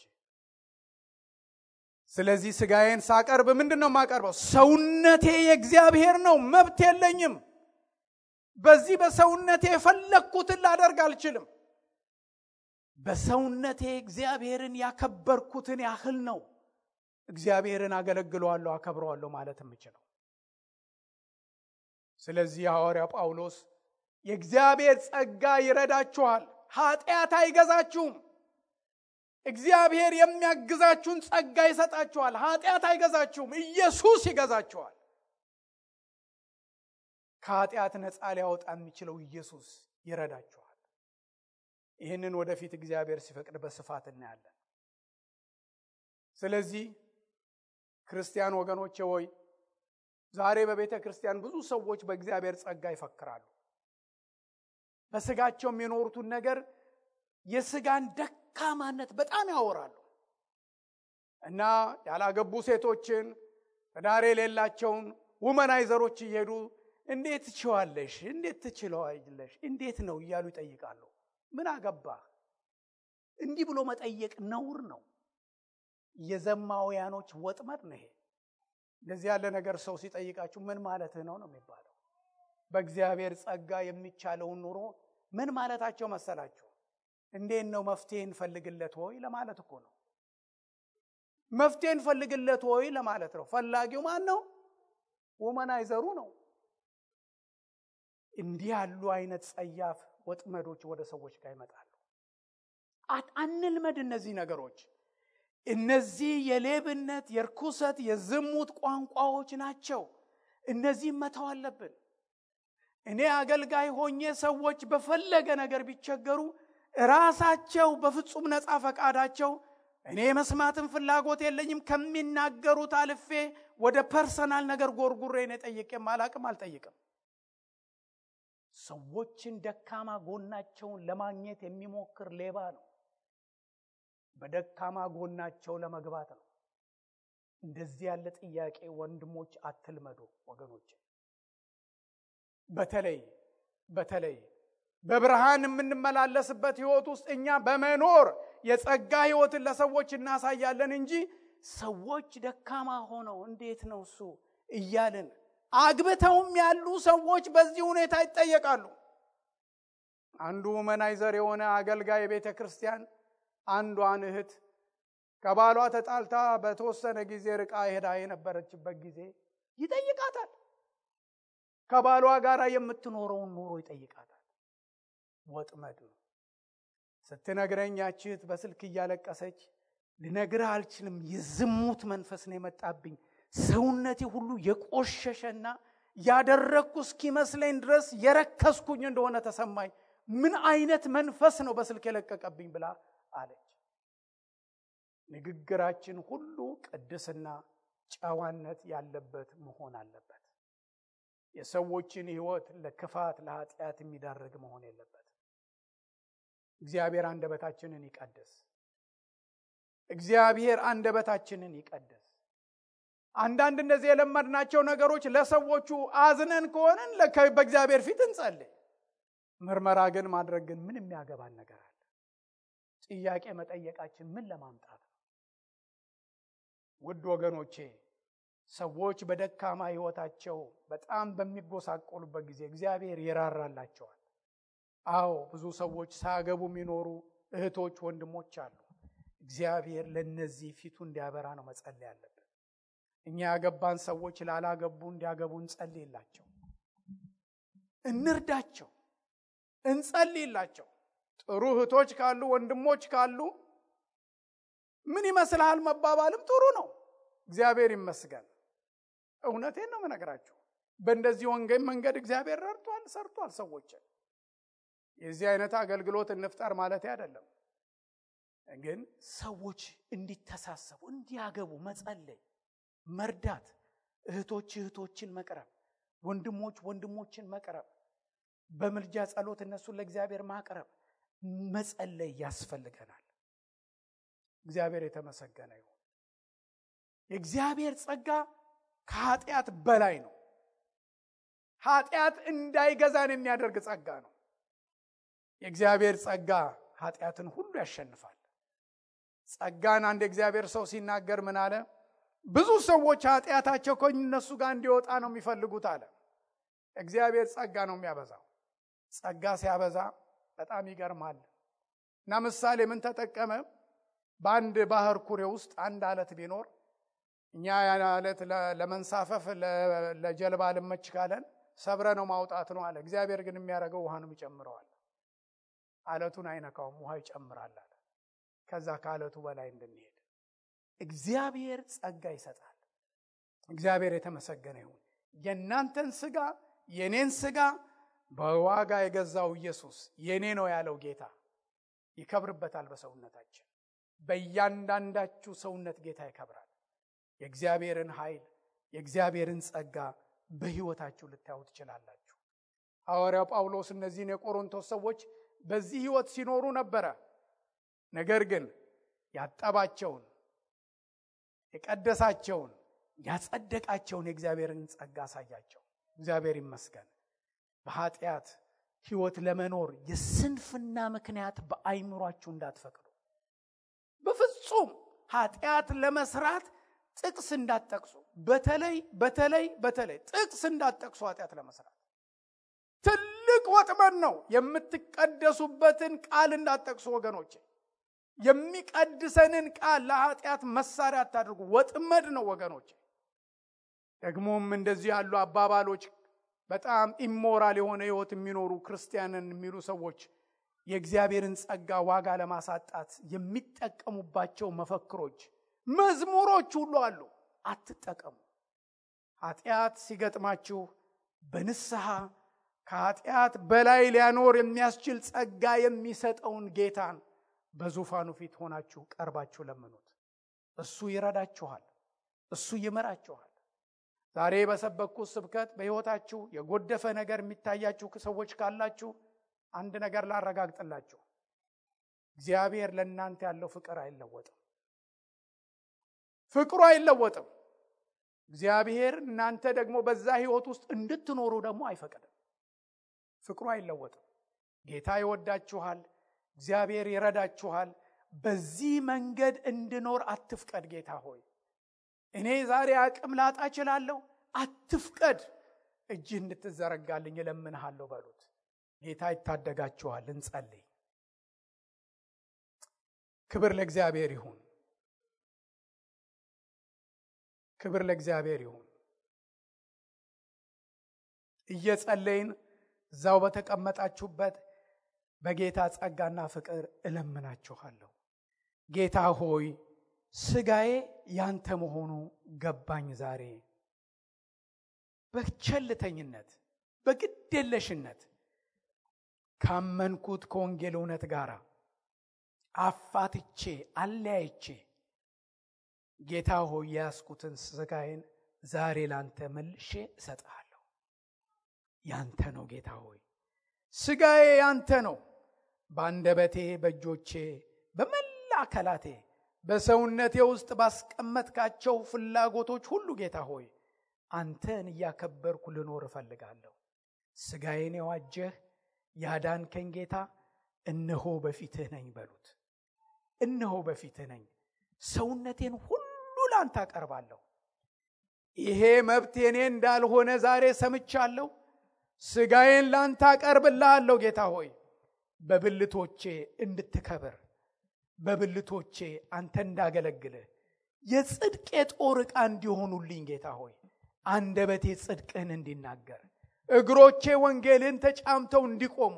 ስለዚህ ስጋዬን ሳቀርብ ምንድነው የማቀርበው? ሰውነቴ የእግዚአብሔር ነው፣ መብት የለኝም። በዚህ በሰውነቴ የፈለኩትን ላደርግ አልችልም። በሰውነቴ እግዚአብሔርን ያከበርኩትን ያህል ነው እግዚአብሔርን አገለግለዋለሁ፣ አከብረዋለሁ ማለት የምችለው። ስለዚህ ሐዋርያው ጳውሎስ የእግዚአብሔር ጸጋ ይረዳችኋል፣ ኃጢአት አይገዛችሁም። እግዚአብሔር የሚያግዛችሁን ጸጋ ይሰጣችኋል፣ ኃጢአት አይገዛችሁም። ኢየሱስ ይገዛችኋል። ከኃጢአት ነፃ ሊያወጣ የሚችለው ኢየሱስ ይረዳችኋል። ይህንን ወደፊት እግዚአብሔር ሲፈቅድ በስፋት እናያለን። ስለዚህ ክርስቲያን ወገኖቼ ሆይ ዛሬ በቤተ ክርስቲያን ብዙ ሰዎች በእግዚአብሔር ጸጋ ይፈክራሉ። በስጋቸው የሚኖሩትን ነገር የስጋን ደካማነት በጣም ያወራሉ እና ያላገቡ ሴቶችን ትዳር የሌላቸውን ውመናይዘሮች እየሄዱ እንዴት ትችዋለሽ፣ እንዴት ትችለዋለሽ፣ እንዴት ነው እያሉ ይጠይቃሉ። ምን አገባህ? እንዲህ ብሎ መጠየቅ ነውር ነው። የዘማውያኖች ወጥመድ ነው ይሄ። እንደዚህ ያለ ነገር ሰው ሲጠይቃችሁ ምን ማለትህ ነው ነው የሚባለው። በእግዚአብሔር ጸጋ የሚቻለውን ኑሮ ምን ማለታቸው መሰላችሁ? እንዴት ነው መፍትሄን ፈልግለት ሆይ ለማለት እኮ ነው። መፍትሄን ፈልግለት ሆይ ለማለት ነው። ፈላጊው ማን ነው? ወመናይዘሩ ነው። እንዲህ ያሉ አይነት ጸያፍ ወጥመዶች ወደ ሰዎች ጋር ይመጣሉ። አንልመድ እነዚህ ነገሮች። እነዚህ የሌብነት፣ የርኩሰት፣ የዝሙት ቋንቋዎች ናቸው። እነዚህ መተው አለብን። እኔ አገልጋይ ሆኜ ሰዎች በፈለገ ነገር ቢቸገሩ ራሳቸው በፍጹም ነፃ ፈቃዳቸው እኔ መስማትን ፍላጎት የለኝም ከሚናገሩት አልፌ ወደ ፐርሰናል ነገር ጎርጉሬ ነው ጠይቄም አልጠይቅም። ሰዎችን ደካማ ጎናቸውን ለማግኘት የሚሞክር ሌባ ነው። በደካማ ጎናቸው ለመግባት ነው። እንደዚህ ያለ ጥያቄ ወንድሞች አትልመዱ ወገኖች። በተለይ በብርሃን የምንመላለስበት ህይወት ውስጥ እኛ በመኖር የጸጋ ህይወትን ለሰዎች እናሳያለን እንጂ ሰዎች ደካማ ሆነው እንዴት ነው እሱ እያልን አግብተውም ያሉ ሰዎች በዚህ ሁኔታ ይጠየቃሉ። አንዱ መናይዘር የሆነ አገልጋይ ቤተ ክርስቲያን አንዷን እህት ከባሏ ተጣልታ በተወሰነ ጊዜ ርቃ ሄዳ የነበረችበት ጊዜ ይጠይቃታል። ከባሏ ጋር የምትኖረውን ኑሮ ይጠይቃታል። ወጥመድ ነው። ስትነግረኝ ያቺት በስልክ እያለቀሰች ልነግርህ አልችልም፣ የዝሙት መንፈስ ነው የመጣብኝ፣ ሰውነቴ ሁሉ የቆሸሸና ያደረኩ እስኪመስለኝ ድረስ የረከስኩኝ እንደሆነ ተሰማኝ፣ ምን አይነት መንፈስ ነው በስልክ የለቀቀብኝ ብላ አለች። ንግግራችን ሁሉ ቅድስና፣ ጨዋነት ያለበት መሆን አለበት። የሰዎችን ህይወት ለክፋት ለኃጢአት የሚዳርግ መሆን የለበት። እግዚአብሔር አንደበታችንን ይቀድስ። እግዚአብሔር አንደበታችንን ይቀድስ። አንዳንድ እነዚህ የለመድናቸው ነገሮች ለሰዎቹ አዝነን ከሆነን በእግዚአብሔር ፊት እንጸልይ። ምርመራ ግን ማድረግ ግን ምን የሚያገባን ነገር አለ? ጥያቄ መጠየቃችን ምን ለማምጣት ነው? ውድ ወገኖቼ ሰዎች በደካማ ህይወታቸው በጣም በሚጎሳቆሉበት ጊዜ እግዚአብሔር ይራራላቸዋል። አዎ ብዙ ሰዎች ሳያገቡ የሚኖሩ እህቶች ወንድሞች አሉ። እግዚአብሔር ለነዚህ ፊቱ እንዲያበራ ነው መጸለይ ያለብን። እኛ ያገባን ሰዎች ላላገቡ እንዲያገቡ እንጸልይላቸው፣ እንርዳቸው፣ እንጸልይላቸው። ጥሩ እህቶች ካሉ ወንድሞች ካሉ ምን ይመስልሃል መባባልም ጥሩ ነው። እግዚአብሔር ይመስገን። እውነቴን ነው የምነግራችሁ። በእንደዚህ ወንጌል መንገድ እግዚአብሔር ረድቷል፣ ሰርቷል ሰዎችን። የዚህ አይነት አገልግሎት እንፍጠር ማለት አይደለም፣ ግን ሰዎች እንዲተሳሰቡ እንዲያገቡ መጸለይ፣ መርዳት፣ እህቶችን መቅረብ፣ ወንድሞችን መቅረብ፣ በምልጃ ጸሎት እነሱን ለእግዚአብሔር ማቅረብ፣ መጸለይ ያስፈልገናል። እግዚአብሔር የተመሰገነ ይሁን። የእግዚአብሔር ጸጋ ከኃጢአት በላይ ነው። ኃጢአት እንዳይገዛን የሚያደርግ ጸጋ ነው። የእግዚአብሔር ጸጋ ኃጢአትን ሁሉ ያሸንፋል። ጸጋን አንድ እግዚአብሔር ሰው ሲናገር ምን አለ? ብዙ ሰዎች ኃጢአታቸው ከእነሱ ጋር እንዲወጣ ነው የሚፈልጉት አለ። እግዚአብሔር ጸጋ ነው የሚያበዛው። ጸጋ ሲያበዛ በጣም ይገርማል። እና ምሳሌ ምን ተጠቀመ? በአንድ ባህር ኩሬ ውስጥ አንድ አለት ቢኖር እኛ ያን አለት ለመንሳፈፍ ለጀልባ ልመች ካለን ሰብረ ነው ማውጣት ነው አለ። እግዚአብሔር ግን የሚያደርገው ውሃ ነው ይጨምረዋል። አለቱን አይነካውም፣ ውሃ ይጨምራል አለ። ከዛ ከአለቱ በላይ እንድንሄድ እግዚአብሔር ጸጋ ይሰጣል። እግዚአብሔር የተመሰገነ ይሁን። የእናንተን ስጋ የኔን ስጋ በዋጋ የገዛው ኢየሱስ የኔ ነው ያለው ጌታ ይከብርበታል። በሰውነታችን በእያንዳንዳችሁ ሰውነት ጌታ ይከብራል። የእግዚአብሔርን ኃይል የእግዚአብሔርን ጸጋ በህይወታችሁ ልታዩ ትችላላችሁ። ሐዋርያው ጳውሎስ እነዚህን የቆሮንቶስ ሰዎች በዚህ ህይወት ሲኖሩ ነበረ። ነገር ግን ያጠባቸውን፣ የቀደሳቸውን፣ ያጸደቃቸውን የእግዚአብሔርን ጸጋ አሳያቸው። እግዚአብሔር ይመስገን። በኃጢአት ህይወት ለመኖር የስንፍና ምክንያት በአይምሯችሁ እንዳትፈቅዱ። በፍጹም ኃጢአት ለመስራት ጥቅስ እንዳትጠቅሱ። በተለይ ጥቅስ እንዳትጠቅሱ። ኃጢአት ለመስራት ትልቅ ወጥመድ ነው። የምትቀደሱበትን ቃል እንዳትጠቅሱ ወገኖቼ። የሚቀድሰንን ቃል ለኃጢአት መሳሪያ አታድርጉ። ወጥመድ ነው ወገኖቼ። ደግሞም እንደዚህ ያሉ አባባሎች በጣም ኢሞራል የሆነ ህይወት የሚኖሩ ክርስቲያንን የሚሉ ሰዎች የእግዚአብሔርን ጸጋ ዋጋ ለማሳጣት የሚጠቀሙባቸው መፈክሮች፣ መዝሙሮች ሁሉ አሉ። አትጠቀሙ። ኃጢአት ሲገጥማችሁ በንስሐ ከኃጢአት በላይ ሊያኖር የሚያስችል ጸጋ የሚሰጠውን ጌታን በዙፋኑ ፊት ሆናችሁ ቀርባችሁ ለምኑት። እሱ ይረዳችኋል። እሱ ይመራችኋል። ዛሬ በሰበኩት ስብከት በህይወታችሁ የጎደፈ ነገር የሚታያችሁ ሰዎች ካላችሁ አንድ ነገር ላረጋግጥላችሁ። እግዚአብሔር ለእናንተ ያለው ፍቅር አይለወጥም። ፍቅሩ አይለወጥም። እግዚአብሔር እናንተ ደግሞ በዛ ህይወት ውስጥ እንድትኖሩ ደግሞ አይፈቅድም። ፍቅሩ አይለወጥም። ጌታ ይወዳችኋል። እግዚአብሔር ይረዳችኋል። በዚህ መንገድ እንድኖር አትፍቀድ። ጌታ ሆይ እኔ ዛሬ አቅም ላጣ እችላለሁ፣ አትፍቀድ። እጅ እንድትዘረጋልኝ እለምንሃለሁ በሉት። ጌታ ይታደጋችኋል። እንጸልይ። ክብር ለእግዚአብሔር ይሁን። ክብር ለእግዚአብሔር ይሁን። እየጸለይን እዛው በተቀመጣችሁበት በጌታ ጸጋና ፍቅር እለምናችኋለሁ። ጌታ ሆይ ስጋዬ ያንተ መሆኑ ገባኝ። ዛሬ በቸልተኝነት በግዴለሽነት ካመንኩት ከወንጌል እውነት ጋር አፋትቼ አለያይቼ ጌታ ሆይ ያስኩትን ስጋዬን ዛሬ ላንተ መልሼ እሰጥሃለሁ። ያንተ ነው ጌታ ሆይ፣ ስጋዬ ያንተ ነው። በአንደበቴ፣ በእጆቼ፣ በመላ አካላቴ፣ በሰውነቴ ውስጥ ባስቀመጥካቸው ፍላጎቶች ሁሉ ጌታ ሆይ አንተን እያከበርኩ ልኖር እፈልጋለሁ። ስጋዬን የዋጀህ ያዳንከኝ ጌታ እነሆ በፊትህ ነኝ በሉት። እነሆ በፊትህ ነኝ። ሰውነቴን ሁሉ ላንተ አቀርባለሁ። ይሄ መብት የኔ እንዳልሆነ ዛሬ ሰምቻለሁ። ስጋዬን ላንተ አቀርብልሃለሁ ጌታ ሆይ፣ በብልቶቼ እንድትከብር፣ በብልቶቼ አንተ እንዳገለግልህ የጽድቄ ጦር ዕቃ እንዲሆኑልኝ ጌታ ሆይ፣ አንደበቴ ጽድቅህን እንዲናገር፣ እግሮቼ ወንጌልን ተጫምተው እንዲቆሙ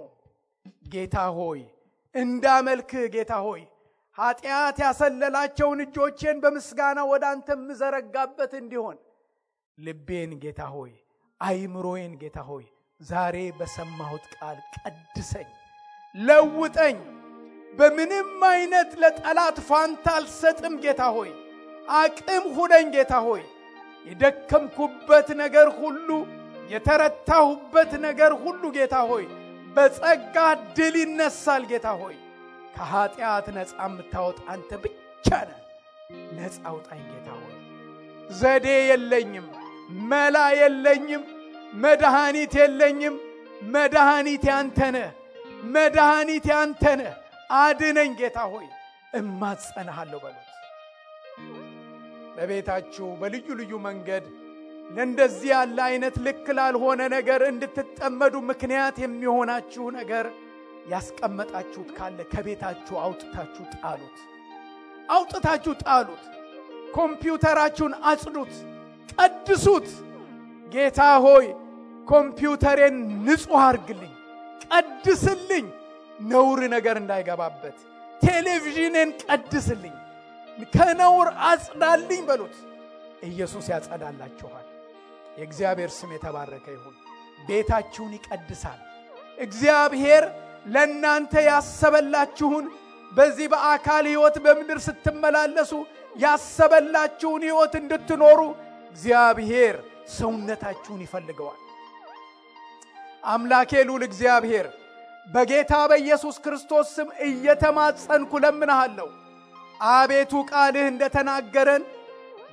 ጌታ ሆይ እንዳመልክህ ጌታ ሆይ ኃጢአት ያሰለላቸውን እጆቼን በምስጋና ወደ አንተ ምዘረጋበት እንዲሆን ልቤን ጌታ ሆይ አይምሮዬን ጌታ ሆይ ዛሬ በሰማሁት ቃል ቀድሰኝ፣ ለውጠኝ። በምንም አይነት ለጠላት ፋንታ አልሰጥም ጌታ ሆይ፣ አቅም ሁነኝ ጌታ ሆይ። የደከምኩበት ነገር ሁሉ፣ የተረታሁበት ነገር ሁሉ ጌታ ሆይ በጸጋ ድል ይነሳል ጌታ ሆይ። ከኃጢአት ነፃ የምታወጣ አንተ ብቻ ነህ። ነፃ አውጣኝ ጌታ ሆይ። ዘዴ የለኝም፣ መላ የለኝም፣ መድኃኒት የለኝም። መድኃኒት ያንተ ነህ። መድኃኒት ያንተ ነህ። አድነኝ ጌታ ሆይ፣ እማጸናሃለሁ በሉት። በቤታችሁ በልዩ ልዩ መንገድ ለእንደዚህ ያለ አይነት ልክ ላልሆነ ነገር እንድትጠመዱ ምክንያት የሚሆናችሁ ነገር ያስቀመጣችሁት ካለ ከቤታችሁ አውጥታችሁ ጣሉት። አውጥታችሁ ጣሉት። ኮምፒውተራችሁን አጽዱት፣ ቀድሱት። ጌታ ሆይ ኮምፒውተሬን ንጹህ አርግልኝ፣ ቀድስልኝ፣ ነውር ነገር እንዳይገባበት። ቴሌቪዥንን ቀድስልኝ፣ ከነውር አጽዳልኝ በሉት። ኢየሱስ ያጸዳላችኋል። የእግዚአብሔር ስም የተባረከ ይሁን። ቤታችሁን ይቀድሳል። እግዚአብሔር ለእናንተ ያሰበላችሁን በዚህ በአካል ሕይወት በምድር ስትመላለሱ ያሰበላችሁን ሕይወት እንድትኖሩ እግዚአብሔር ሰውነታችሁን ይፈልገዋል። አምላኬ ልዑል እግዚአብሔር በጌታ በኢየሱስ ክርስቶስ ስም እየተማጸንኩ ለምንሃለሁ። አቤቱ ቃልህ እንደተናገረን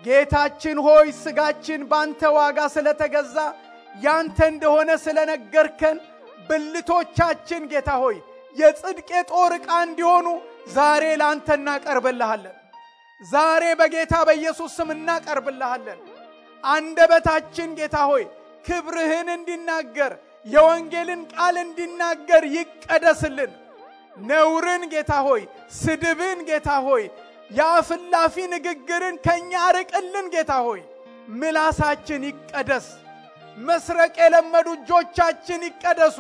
ጌታችን ሆይ ስጋችን ባንተ ዋጋ ስለተገዛ ያንተ እንደሆነ ስለነገርከን ብልቶቻችን ጌታ ሆይ የጽድቄ ጦር ዕቃ እንዲሆኑ ዛሬ ላንተ እናቀርብልሃለን። ዛሬ በጌታ በኢየሱስ ስም እናቀርብልሃለን። አንደበታችን ጌታ ሆይ ክብርህን እንዲናገር፣ የወንጌልን ቃል እንዲናገር ይቀደስልን። ነውርን ጌታ ሆይ፣ ስድብን ጌታ ሆይ፣ የአፍላፊ ንግግርን ከኛ አርቅልን ጌታ ሆይ። ምላሳችን ይቀደስ። መስረቅ የለመዱ እጆቻችን ይቀደሱ።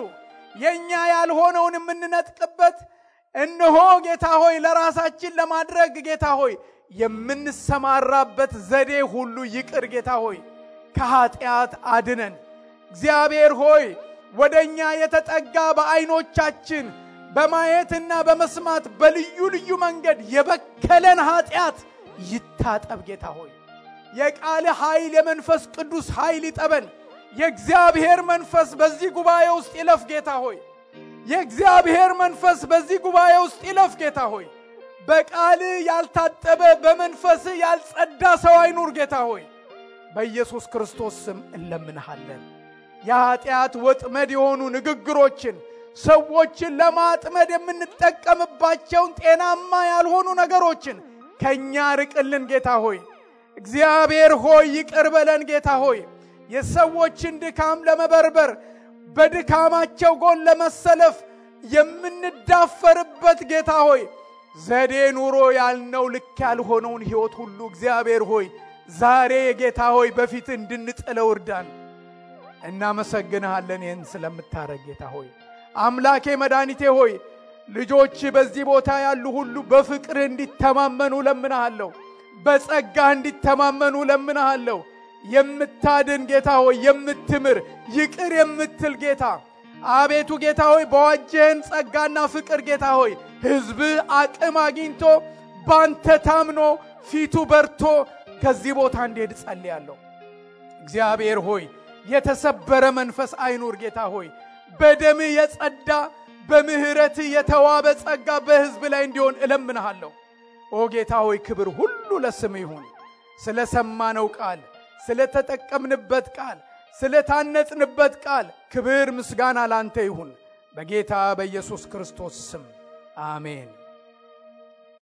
የኛ ያልሆነውን የምንነጥቅበት እነሆ ጌታ ሆይ ለራሳችን ለማድረግ ጌታ ሆይ የምንሰማራበት ዘዴ ሁሉ ይቅር ጌታ ሆይ ከኃጢአት አድነን። እግዚአብሔር ሆይ ወደኛ የተጠጋ በአይኖቻችን በማየትና በመስማት በልዩ ልዩ መንገድ የበከለን ኃጢአት ይታጠብ ጌታ ሆይ። የቃል ኃይል የመንፈስ ቅዱስ ኃይል ይጠበን። የእግዚአብሔር መንፈስ በዚህ ጉባኤ ውስጥ ይለፍ ጌታ ሆይ። የእግዚአብሔር መንፈስ በዚህ ጉባኤ ውስጥ ይለፍ ጌታ ሆይ። በቃል ያልታጠበ በመንፈስ ያልጸዳ ሰው አይኑር ጌታ ሆይ። በኢየሱስ ክርስቶስ ስም እንለምንሃለን። የኃጢአት ወጥመድ የሆኑ ንግግሮችን ሰዎችን ለማጥመድ የምንጠቀምባቸውን ጤናማ ያልሆኑ ነገሮችን ከኛ ርቅልን ጌታ ሆይ። እግዚአብሔር ሆይ ይቅር በለን ጌታ ሆይ። የሰዎችን ድካም ለመበርበር በድካማቸው ጎን ለመሰለፍ የምንዳፈርበት ጌታ ሆይ ዘዴ ኑሮ ያልነው ልክ ያልሆነውን ሕይወት ሁሉ እግዚአብሔር ሆይ ዛሬ ጌታ ሆይ በፊት እንድንጥለው እርዳን። እናመሰግንሃለን ይህን ስለምታረግ ጌታ ሆይ። አምላኬ መድኃኒቴ ሆይ ልጆች በዚህ ቦታ ያሉ ሁሉ በፍቅር እንዲተማመኑ ለምንሃለሁ። በጸጋ እንዲተማመኑ ለምንሃለሁ። የምታድን ጌታ ሆይ የምትምር ይቅር የምትል ጌታ አቤቱ ጌታ ሆይ በዋጀህን ጸጋና ፍቅር ጌታ ሆይ ሕዝብ አቅም አግኝቶ ባንተ ታምኖ ፊቱ በርቶ ከዚህ ቦታ እንዲሄድ ጸልያለሁ። እግዚአብሔር ሆይ የተሰበረ መንፈስ አይኑር ጌታ ሆይ። በደም የጸዳ በምህረት የተዋበ ጸጋ በሕዝብ ላይ እንዲሆን እለምንሃለሁ። ኦ ጌታ ሆይ ክብር ሁሉ ለስም ይሁን። ስለሰማነው ቃል ስለተጠቀምንበት ቃል ስለታነጽንበት ቃል ክብር ምስጋና ላንተ ይሁን በጌታ በኢየሱስ ክርስቶስ ስም አሜን።